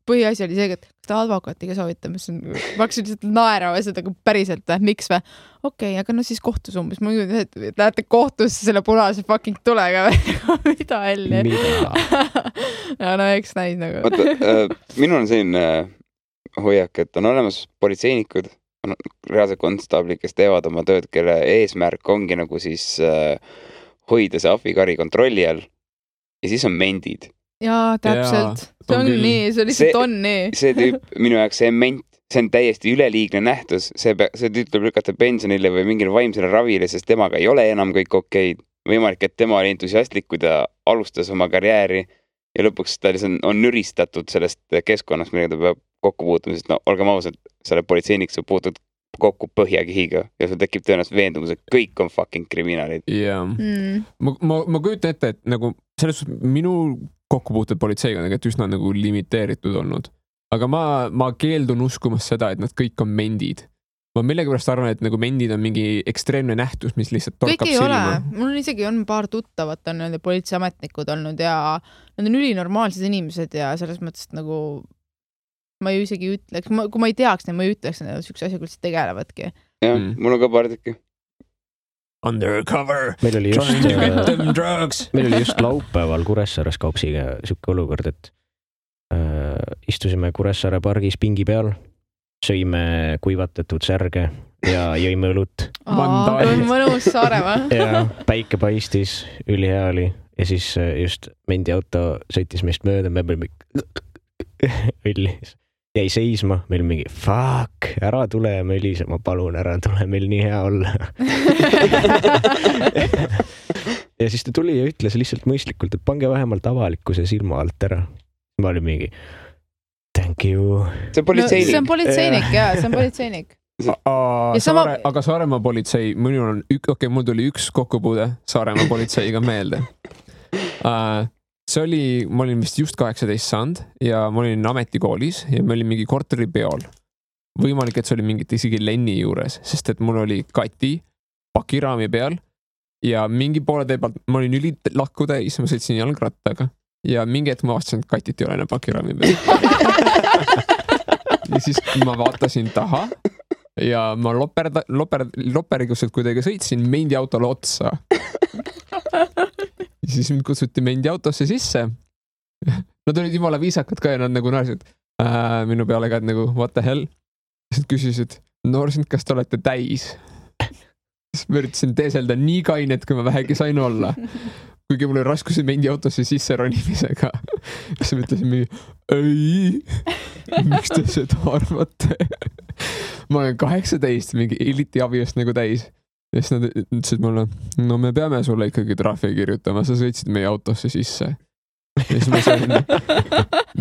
põhiasi oli see, et kas ta advokaatiga soovitab, mis on, ma hakkasin lihtsalt naerama seda päriselt, miks või? Okei, aga no siis kohtus umbes, ma mõtlen, et lähete kohtusse selle punase fucking tulega või mida helli? Ja no eks näis nagu. Vaata, minul on selline hoiak, et on olemas politseinikud, on reaalselt konstaablid, kes teevad oma tööd, kelle eesmärk ongi nagu siis hoida see ahvikari kontrolli all ja siis on mendid. Jaa, täpselt. See on nii, see lihtsalt on nii. See tüüp, minu jaoks see ment, see on täiesti üleliigne nähtus. See tüüp tuleb lükata pensionile või mingile vaimsele ravile, sest temaga ei ole enam kõik okeid. Võimalik, et tema oli entusiastlik, kui ta alustas oma karjääri ja lõpuks ta on nüristatud sellest keskkonnast, millega ta peab kokku puutuma, sest no olgem ausalt, selle politseinik sa puutud kokku põhjakihiga ja sul tekib tõenäoliselt veendumus, et kõik on fucking kriminaalid. Jaa. Ma kujutan ette, et nagu selles minu kokkupuutud politseiga on tegelikult üsna nagu limiteeritud olnud. Aga ma keeldun uskumas seda, et nad kõik on mendid. Ma millegipärast arvan, et nagu mendid on mingi ekstreemne nähtus, mis lihtsalt torkab silma. Kõik ei ole. Mul isegi on paar tuttavat on nende politseiametnikud olnud ja nad on ülinormaalsed inimesed ja selles mõttes nagu ma ju isegi ütleks, kui ma ei teaks, ma ei ütleks, et üks asja küll tegelevadki. Jah, mul on ka paar tükki. Undercover. Meil oli just laupäeval Kuressaares Kaupsiga siuke olukord, et istusime Kuressaare pargis pingi peal, sõime kuivatatud särge ja jõime õlut. Mõnus Saaremaa. Ja päike paistis, ülihea oli ja siis just mendi auto sõitis meist mööda, me olime õlli. Jäi seisma, meil mingi fuck, ära tule ja Melise, ma palun, ära tule, meil nii hea olla. Ja siis ta tuli ja ütles lihtsalt mõistlikult, et pange vähemalt avalikkuse silma alt ära. Ma olin mingi thank you. See on politseinik. See on politseinik, jaa, see on politseinik. Aga Saaremaa politsei, mul tuli üks kokkupuude Saaremaa politseiga meelde. Ma olin vist just 18 saanud ja ma olin ametikoolis ja me olin mingi korteripeol. Võimalik, et see oli mingit isegi Lenni juures, sest et mul oli Kati pakiraami peal ja mingi poole tee pealt ma olin lakku täis, ma sõitsin jalgrattaga ja mingi hetk ma vaatasin, et Katit ei ole enam pakiraami peal. Ja siis ma vaatasin taha ja ma loperiguselt kuidagi sõitsin mendi autole otsa. Ja siis mind kutsuti mendi autosse sisse. Nad olid jumala viisakad ka ja nad nagu naersid minu peale ka, et nagu what the hell. Siis küsisid, noorsind, kas te olete täis? Siis ma üritasin teeselda nii kainet, kui ma vähegi sain olla. Kuigi mul oli raskusi mendi autosse sisse ronimisega. Siis ma ütlesin mingi, ei, miks te seda arvate? Ma olen 18, mingi eliti abiest nagu täis. Ja siis nad ütlesid mulle, no me peame sulle ikkagi trahvi kirjutama, sa sõitsid meie autosse sisse. Ja siis ma sain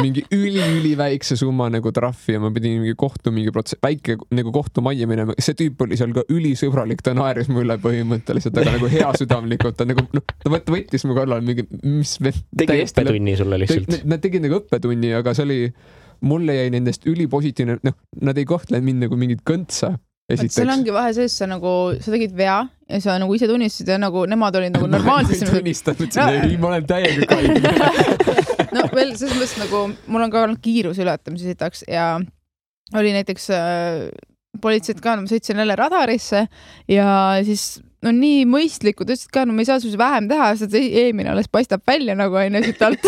mingi üli väikse summa nagu trahvi ja ma pidin mingi väike nagu kohtumajja minema. See tüüp oli seal ka ülisõbralik, ta naeris mulle põhimõtteliselt, aga nagu hea südamlikult. Ta nagu, ta võttis mu kallal mingi, mis tegi õppetunni sulle lihtsalt. Nad tegid nagu õppetunni, aga see oli, mulle jäi nendest ülipositiivne, nad ei kohtle mind nagu mingit kõntsa. Seal ongi vahe sees, sa tegid vea ja sa nagu ise tunnistasid ja nagu nemad olid nagu normaalsed. Ma ei tunnistanud, ei, ma olen täiega kaine. No veel selles mõttes nagu, mul on ka olnud kiiruse ületamise sitaks ja oli näiteks politseid ka, ma sõitsin jälle radarisse ja siis no nii mõistlikud, ütlesid ka, no me ei saa sul vähem teha, sest eelmine alles paistab välja nagu aine siit alt.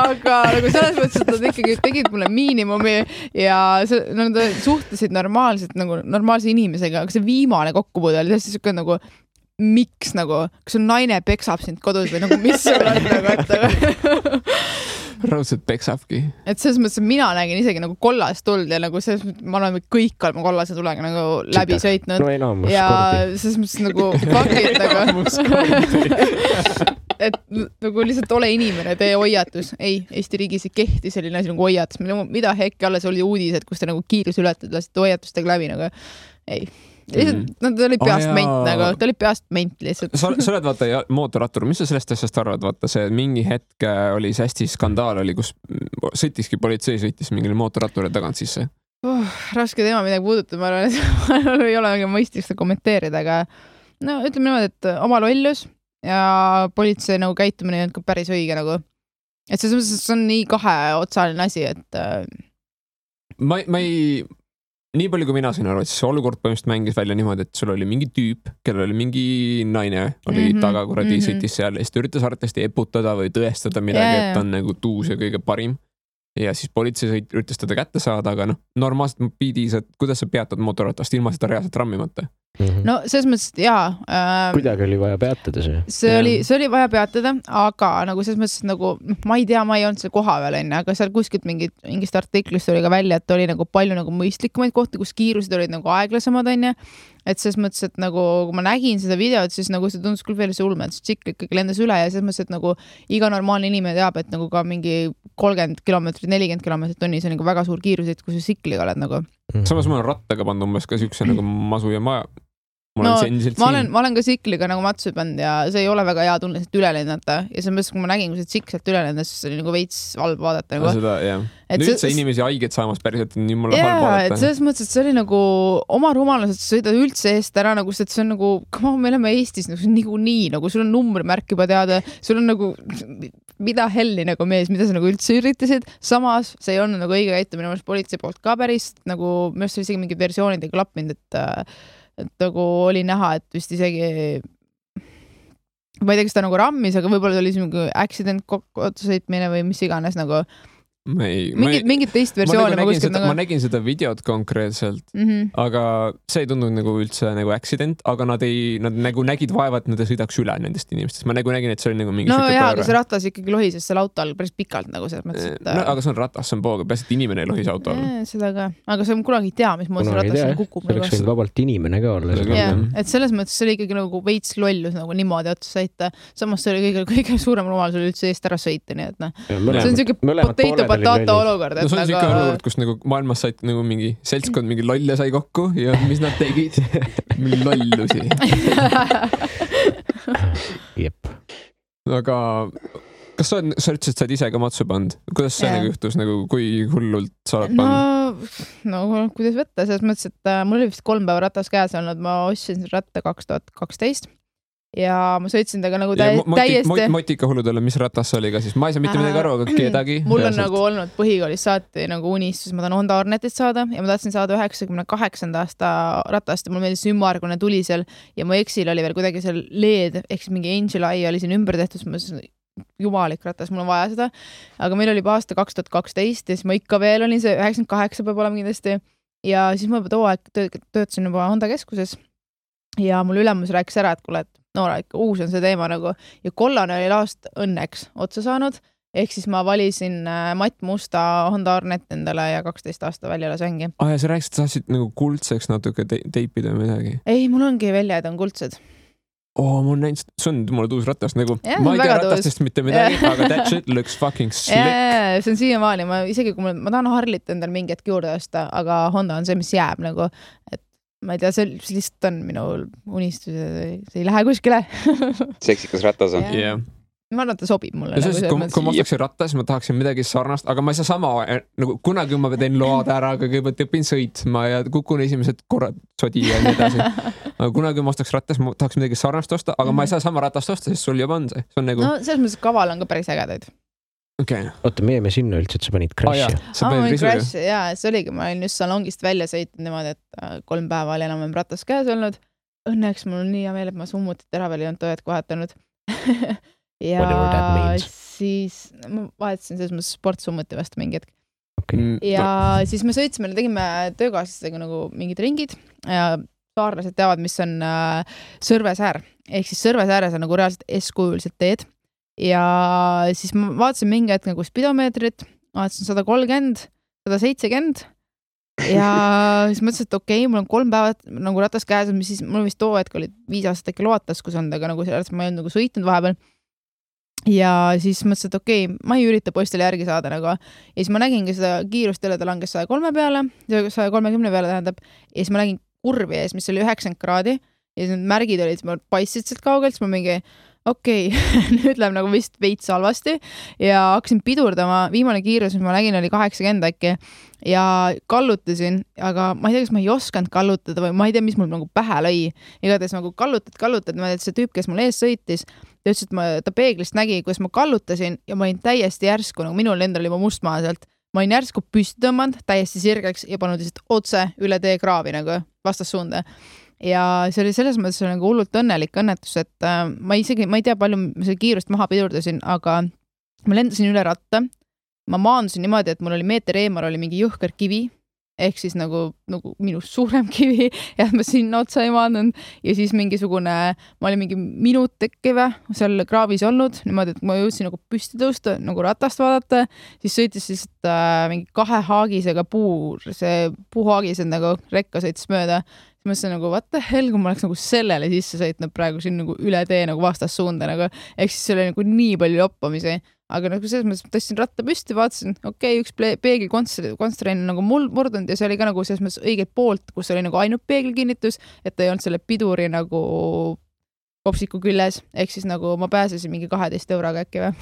Aga nagu selles mõttes, et nad ikkagi tegid mulle miinimumi ja nad suhtlesid normaalselt nagu normaalse inimesega, aga see viimane kokkupuude oli tõesti nagu miks nagu, kas on naine peksab sind kodus või nagu mis sul on nagu, et raudselt peksabki. Et selles mõttes, et mina nägin isegi nagu kollast tuld ja nagu selles mõttes, ma olen kõik olema kollase tulega nagu läbi sõitnud. No enamus ja kordi. Selles mõttes nagu fakid nagu et nagu lihtsalt ole inimene, tee hoiatus. Ei, Eesti riigis ei kehti selline asi nagu hoiatus. Mida hekki alles oli uudised, kus te nagu kiirus ületad, lasite hoiatustega läbi nagu ei. ta oli peast ment nagu, ta oli peast ment lihtsalt. Sa oled vaata mootorrattur, mis sa sellest asjast arvad? Vaata see mingi hetk oli see hästi skandaal oli, kus politsei sõitis mingile mootorratturile tagant sisse. Raske teema midagi puudutab, ma arvan, et ei ole mõistlik seda kommenteerida, aga no ütleme niimoodi, et oma lollus ja politsei nagu käitumine on ka päris õige nagu. Et see on nii kaheotsaline asi, et ma ei nii palju kui mina sain aru, et see olukord põhimõtteliselt mängis välja niimoodi, et sul oli mingi tüüp, kellel oli mingi naine, oli taga kuradi sõitis seal ja siis ta üritas arvatavasti eputada või tõestada midagi, et ta on nagu tuus ja kõige parim. Ja siis politsei üritas teda kätte saada, aga normaalselt piidis, et kuidas sa peatad mootorratast ilma seda reaalselt rammimata? No selles mõttes, et jaa. Kuidagi oli vaja peatada see. See oli vaja peatada, aga nagu selles mõttes, et nagu, ma ei tea, ma ei olnud seal koha veel enne, aga seal kuskilt mingist artiklist oli ka välja, et oli nagu palju nagu mõistlikumaid kohti, kus kiirused olid nagu aeglasemad, on ja. Et selles mõttes, et nagu, kui ma nägin seda videot, siis nagu see tundus küll veel see ulme, et see tšikk ikkagi lendas üle ja selles mõttes, et nagu iga normaalne inimene teab, et nagu ka mingi 30 kilomeetrit, 40 kilomeetrit tunnis on nagu väga suur kiirus, et kui sa sikliga oled nagu. Samas ma olen rattaga pannud umbes ka siukse nagu masu ja ma olen ka sikliga nagu matsu pannud ja see ei ole väga hea tunne sealt üle lennata ja selles mõttes, kui ma nägin, kui see tsikk sealt üle lendas, siis oli nagu veits halb vaadata nagu. Seda, jah. Nüüd see inimesi haiget saamas päriselt on jumala halb vaadata. Et selles mõttes, et see oli nagu oma rumalus, et sõida üldse eest ära, nagu see on nagu, me oleme Eestis nagu nii, nagu sul on numbrimärk juba teada, sul on nagu mida helli nagu mees, mida sa nagu üldse üritasid, samas see ei olnud nagu õige käitumine politsei poolt ka päris, nagu minu arust oli isegi mingi versioonid ei klappinud, et nagu oli näha, et vist isegi ma ei tea, kas ta nagu rammis, aga võib-olla oli mingi accident otsusõitmine või mis iganes nagu mingit teist versiooni ma nägin seda videot konkreetselt, aga see ei tundunud nagu üldse nagu accident, aga nad nagu nägid vaeva, et nad sõidaks üle nendest inimestest. Ma nagu nägin, et see oli nagu mingi aga see ratas ikkagi lohises seal auto all päris pikalt nagu selles mõttes, et aga see on ratas, see on pooga, peas, et inimene ei lohis auto all. Seda ka, aga see on kunagi ei tea, mis moodi see ratas kukub. See oleks võinud vabalt inimene ka olla. Et selles mõttes see oli ikkagi nagu veits lollus nagu niimoodi otsa sõita. Samas see oli kõige suurem rumalus oli üldse eest ära sõita, nii et see on potato olukord. No see on siuke olukord, kus nagu maailmas said nagu mingi seltskond mingi lolle sai kokku ja mis nad tegid? Mingi lollusi. Jep. Aga kas sa ütlesid, said ise ka matsu pand? Kuidas see nagu juhtus, nagu kui hullult sa oled pand? No kuidas võtta, selles mõttes, et mul oli vist 3 päeva ratas käes olnud, ma ostsin ratta 2012 ja ma sõitsin taga nagu täiesti Motika hulludele, mis ratas oli ka siis? Ma ei saa mitte midagi aru, aga kedagi. Mul on nagu olnud põhikoolis saati nagu unistus, ma tahan Honda Hornetit saada ja ma tahtsin saada 98. aasta ratast ja mul meeldis ümmargune tuli seal ja mu eksil oli veel kuidagi seal LED, ehk siis mingi Angel Eye oli siin ümber tehtud, ma jumalik ratas, mul on vaja seda. Aga meil oli aasta 2012 ja siis ma ikka veel olin see 98 peab olema kindlasti ja siis ma too aeg töötasin juba Honda keskuses ja mul ülemus rääkis ära, et kuule, et ikka uus on see teema nagu ja kollane oli laast õnneks otsa saanud, ehk siis ma valisin matt musta Honda Hornet endale ja 12 aasta välja lasengi. Ja sa rääkisid, et sa tahtsid nagu kuldseks natuke teipida või midagi? Ei, mul ongi välja, et on kuldsed. Mul näinud, see on mulle tuus ratas nagu, ma ei tea ratastest mitte midagi, aga that shit looks fucking slick. See on siiamaani, isegi kui ma tahan Harlit endale mingi hetk juurde osta, aga Honda on see, mis jääb nagu, et ma ei tea, see lihtsalt on minu unistus, see ei lähe kuskile. Seksikas ratas on. Ma arvan, et ta sobib mulle. Kui ma ostaksin rattas, ma tahaksin midagi sarnast, aga ma ei saa sama, nagu kunagi ma teen load ära, aga kõigepealt õpin sõitma ja kukun esimesed korrad sodi ja nii edasi. Aga kunagi ma ostaks rattas, ma tahaks midagi sarnast osta, aga ma ei saa sama ratast osta, sest sul juba on see. No selles mõttes kaval on ka päris ägedaid. Okay. Oota, me jäime sinna üldse, et sa panid crash'i. See oligi, ma olin just salongist välja sõitnud niimoodi, et 3 päeva oli enam ratas käes olnud. Õnneks mul on nii hea meel, et ma summutit ära veel ei olnud tööd kohetanud. Ja siis ma vahetasin selles mõttes sportsummuti vastu mingi hetk. Ja siis me sõitsime, tegime töökaaslastega nagu mingid ringid ja saarlased teavad, mis on Sõrvesäär. Ehk siis Sõrvesääres on nagu reaalselt S-kujulised teed. Ja siis ma vaatasin mingi hetk nagu spidomeetrit, vaatasin 130, 170 ja siis mõtlesin, et okei, mul on 3 päeva nagu ratas käes, mis siis mul vist too hetk oli 5 aastat äkki loataskus olnud, aga nagu sellest ma ei olnud nagu sõitnud vahepeal. Ja siis mõtlesin, et okei, ma ei ürita postile järgi saada nagu. Ja siis ma nägingi seda kiirust jälle, ta langes 103 peale, 130 peale tähendab, ja siis ma nägin kurvi ees, mis oli 90 kraadi ja siis need märgid olid, ma paistsid sealt kaugelt, siis ma mingi nüüd läheb nagu vist veits halvasti ja hakkasin pidurdama, viimane kiirus, mis ma nägin, oli 80 äkki ja kallutasin, aga ma ei tea, kas ma ei osanud kallutada või ma ei tea, mis mul nagu pähe lõi. Igatahes nagu kallutad, ma tead, see tüüp, kes mul ees sõitis, ta ütles, et ta peeglist nägi, kuidas ma kallutasin ja ma olin täiesti järsku, nagu minul endal oli must maa sealt. Ma olin järsku püsti tõmmanud, täiesti sirgeks ja pannud lihtsalt otse üle tee kraavi nagu vastassuunda. Ja see oli selles mõttes nagu hullult õnnelik õnnetus, et ma ei tea palju selle kiirust maha pidurdasin, aga ma lendasin üle ratta. Ma maandusin niimoodi, et mul oli meeter eemal oli mingi jõhker kivi, ehk siis nagu minust suurem kivi ja ma sinna otsa ei maandunud ja siis mingisugune, ma olin mingi minut tekkive seal kraavis olnud, niimoodi, et ma jõudsin nagu püsti tõusta, nagu ratast vaadata, siis sõitis lihtsalt mingi 2 haagisega see puuhaagised nagu rekka sõitis mööda. Siis ma mõtlesin nagu, what the hell, kui ma oleks nagu sellele sisse sõitnud praegu siin nagu üle tee nagu vastassuunda nagu, ehk siis see oli nagu nii palju loppamisi, aga nagu selles mõttes tõstsin ratta püsti, vaatasin, üks peegelkonstrain nagu mul murdunud ja see oli ka nagu selles mõttes õigelt poolt, kus oli nagu ainult peegelkinnitus, et ta ei olnud selle piduri nagu kopsiku küljes, ehk siis nagu ma pääsesin mingi 12 euroga äkki või.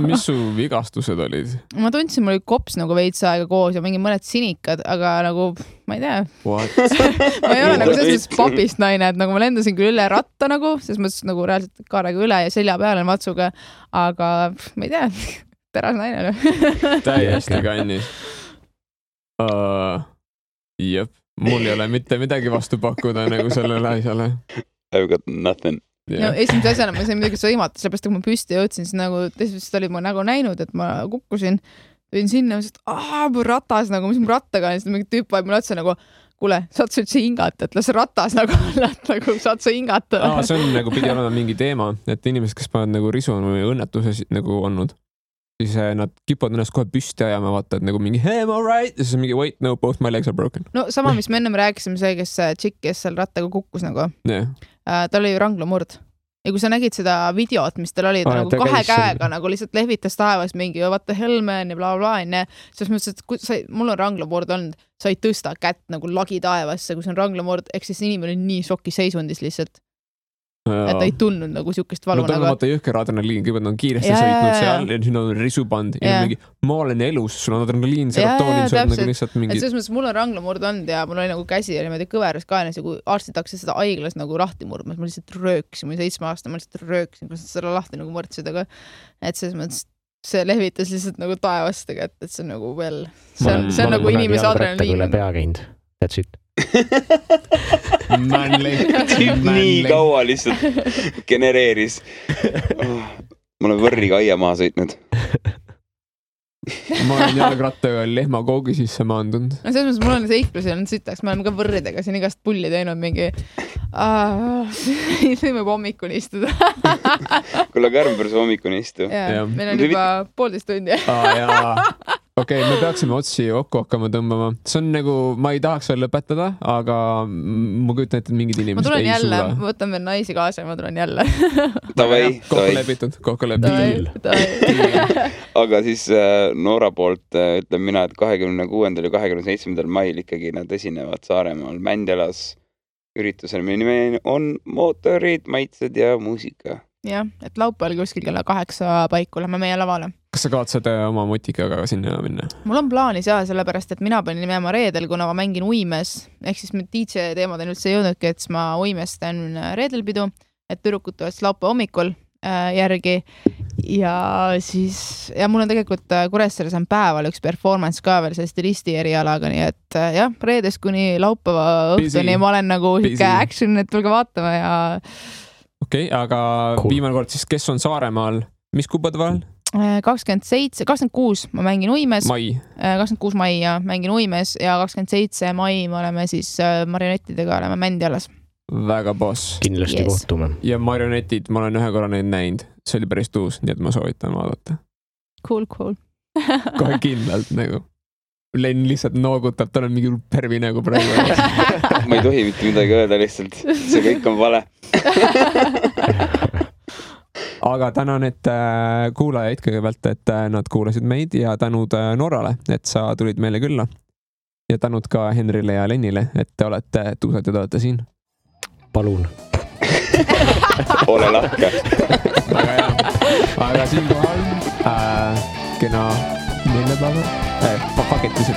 Mis su vigastused olid? Ma tundsin, mul oli kops nagu veits aega koos ja mingi mõned sinikad, aga nagu ma ei tea. Ma ei ole nagu selles mõttes papist naine, et nagu ma lendasin küll üle ratta nagu, selles mõttes nagu reaalselt kaarega üle ja selja peale matsuga, aga ma ei tea, teras naine. Täiesti kannis. Jep, mul ei ole mitte midagi vastu pakkuda nagu sellele asjale. I've got nothing. No, esimese asjana ma sain midagi sõimata, sellepärast kui ma püsti jõudsin, siis nagu teisest oli mu nagu näinud, et ma kukkusin, võin sinna, et mu ratas nagu, mis mu rattaga on, siis mingi tüüp vaid mulle otsa nagu, kuule, saad sa üldse hingata, et las ratas nagu nagu saad sa hingata. See on nagu pidi olema mingi teema, et inimesed, kes panevad nagu risu või õnnetuses nagu olnud, siis nad kipuvad ennast kohe püsti ajama, vaata, et nagu mingi hey, I'm all right, ja siis mingi wait, no, both my legs are broken. No sama, mis me ennem rääkisime, see, kes tšikk, kes seal rattaga kukkus nagu. Tal oli ranglamurd. Ja kui sa nägid seda videot, mis tal oli, nagu 2 käega nagu lihtsalt lehvitas taevas mingi what the hell man ja bla bla bla, siis mõtlesin, et kui mul on ranglamurd olnud, sa ei tõsta kätt nagu lagi taevasse, kui see on ranglamurd, ehk siis inimene on nii šoki seisundis lihtsalt. Et ta ei tundnud nagu siukest valu. No tal on vaata jõhker adrenaliin, kõigepealt on kiiresti sõitnud seal ja siis on risuband ja mingi, ma olen elus, sul on adrenaliin, serotoonin, sul on nagu lihtsalt mingi... Et selles mõttes mul on ranglamurd olnud ja mul oli nagu käsi ja niimoodi kõveras kaenas ja kui arstid hakkasid seda haiglas nagu lahti murdmas, ma lihtsalt rööksin, ma olin 7 aastane, ma lihtsalt rööksin, kui seda lahti nagu mõrdsid, aga et selles mõttes see lehvitas lihtsalt nagu taevast, et see on nagu veel, see on nagu inimese adrenaliin. Pea käinud, that's it. Nii kaua lihtsalt genereeris. Ma olen võrriga aia maha sõitnud. Ma olen jalgrattaga lehma koogi sisse maandunud. No selles mõttes mul on seiklusi olnud sitaks, me oleme ka võrridega siin igast pulli teinud mingi võime hommikuni istuda. Kuule, Kärmberus hommikuni istu. Meil on juba 1,5 tundi. Okei, me peaksime otsi kokku hakkama tõmbama. See on nagu, ma ei tahaks veel lõpetada, aga ma kujutan ette, et mingid inimesed ei jälle, suuda. Ma võtan veel naisi kaasa ja ma tulen jälle. Kokku lepitud. Aga siis Noora poolt ütlen mina, et 26. ja 27. mail ikkagi nad esinevad Saaremaal Mändjalas üritusel. Meie nimi on mootorid, maitsed ja muusika. Jah, et laupäeval kuskil kella 8 paiku lähme meie lavale. Kas sa kavatsed oma mutikaga sinna minna? Mul on plaanis sellepärast, et mina panin minema reedel, kuna ma mängin Uimes, ehk siis DJ teemad on üldse jõudnudki, et ma Uimes teen reedelpidu, et tüdrukud tulevad laupäeva hommikul järgi ja siis, ja mul on tegelikult Kuressaares on päeval üks performance ka veel see stilisti erialaga, nii et jah, reedest kuni laupäeva õhtuni ma olen nagu action, et tulge vaatama ja Okei, aga viimane kord siis, kes on Saaremaal, mis kuupade vahel? 26 ma mängin Uimes. 26 mai ja mängin Uimes ja 27 mai me oleme siis marionettidega oleme Mändjalas. Väga boss. Kindlasti kohtume. Ja marionetid, ma olen ühe korra neid näinud. See oli päris tuus, nii et ma soovitan vaadata. Cool. Kohe kindlalt nagu. Len lihtsalt noogutab, tal on mingi pervi nagu praegu. Ma ei tohi mitte midagi öelda lihtsalt. See kõik on vale. Aga tänan, et kuulajaid kõigepealt, et nad kuulasid meid ja tänud Norrale, et sa tulid meile külla. ja tänud ka Henrile ja Lennile, et te olete tuusad ja te olete siin. Palun. Ole lahke. Väga hea. Aga siinkohal kena neljapäeva. Paketisid.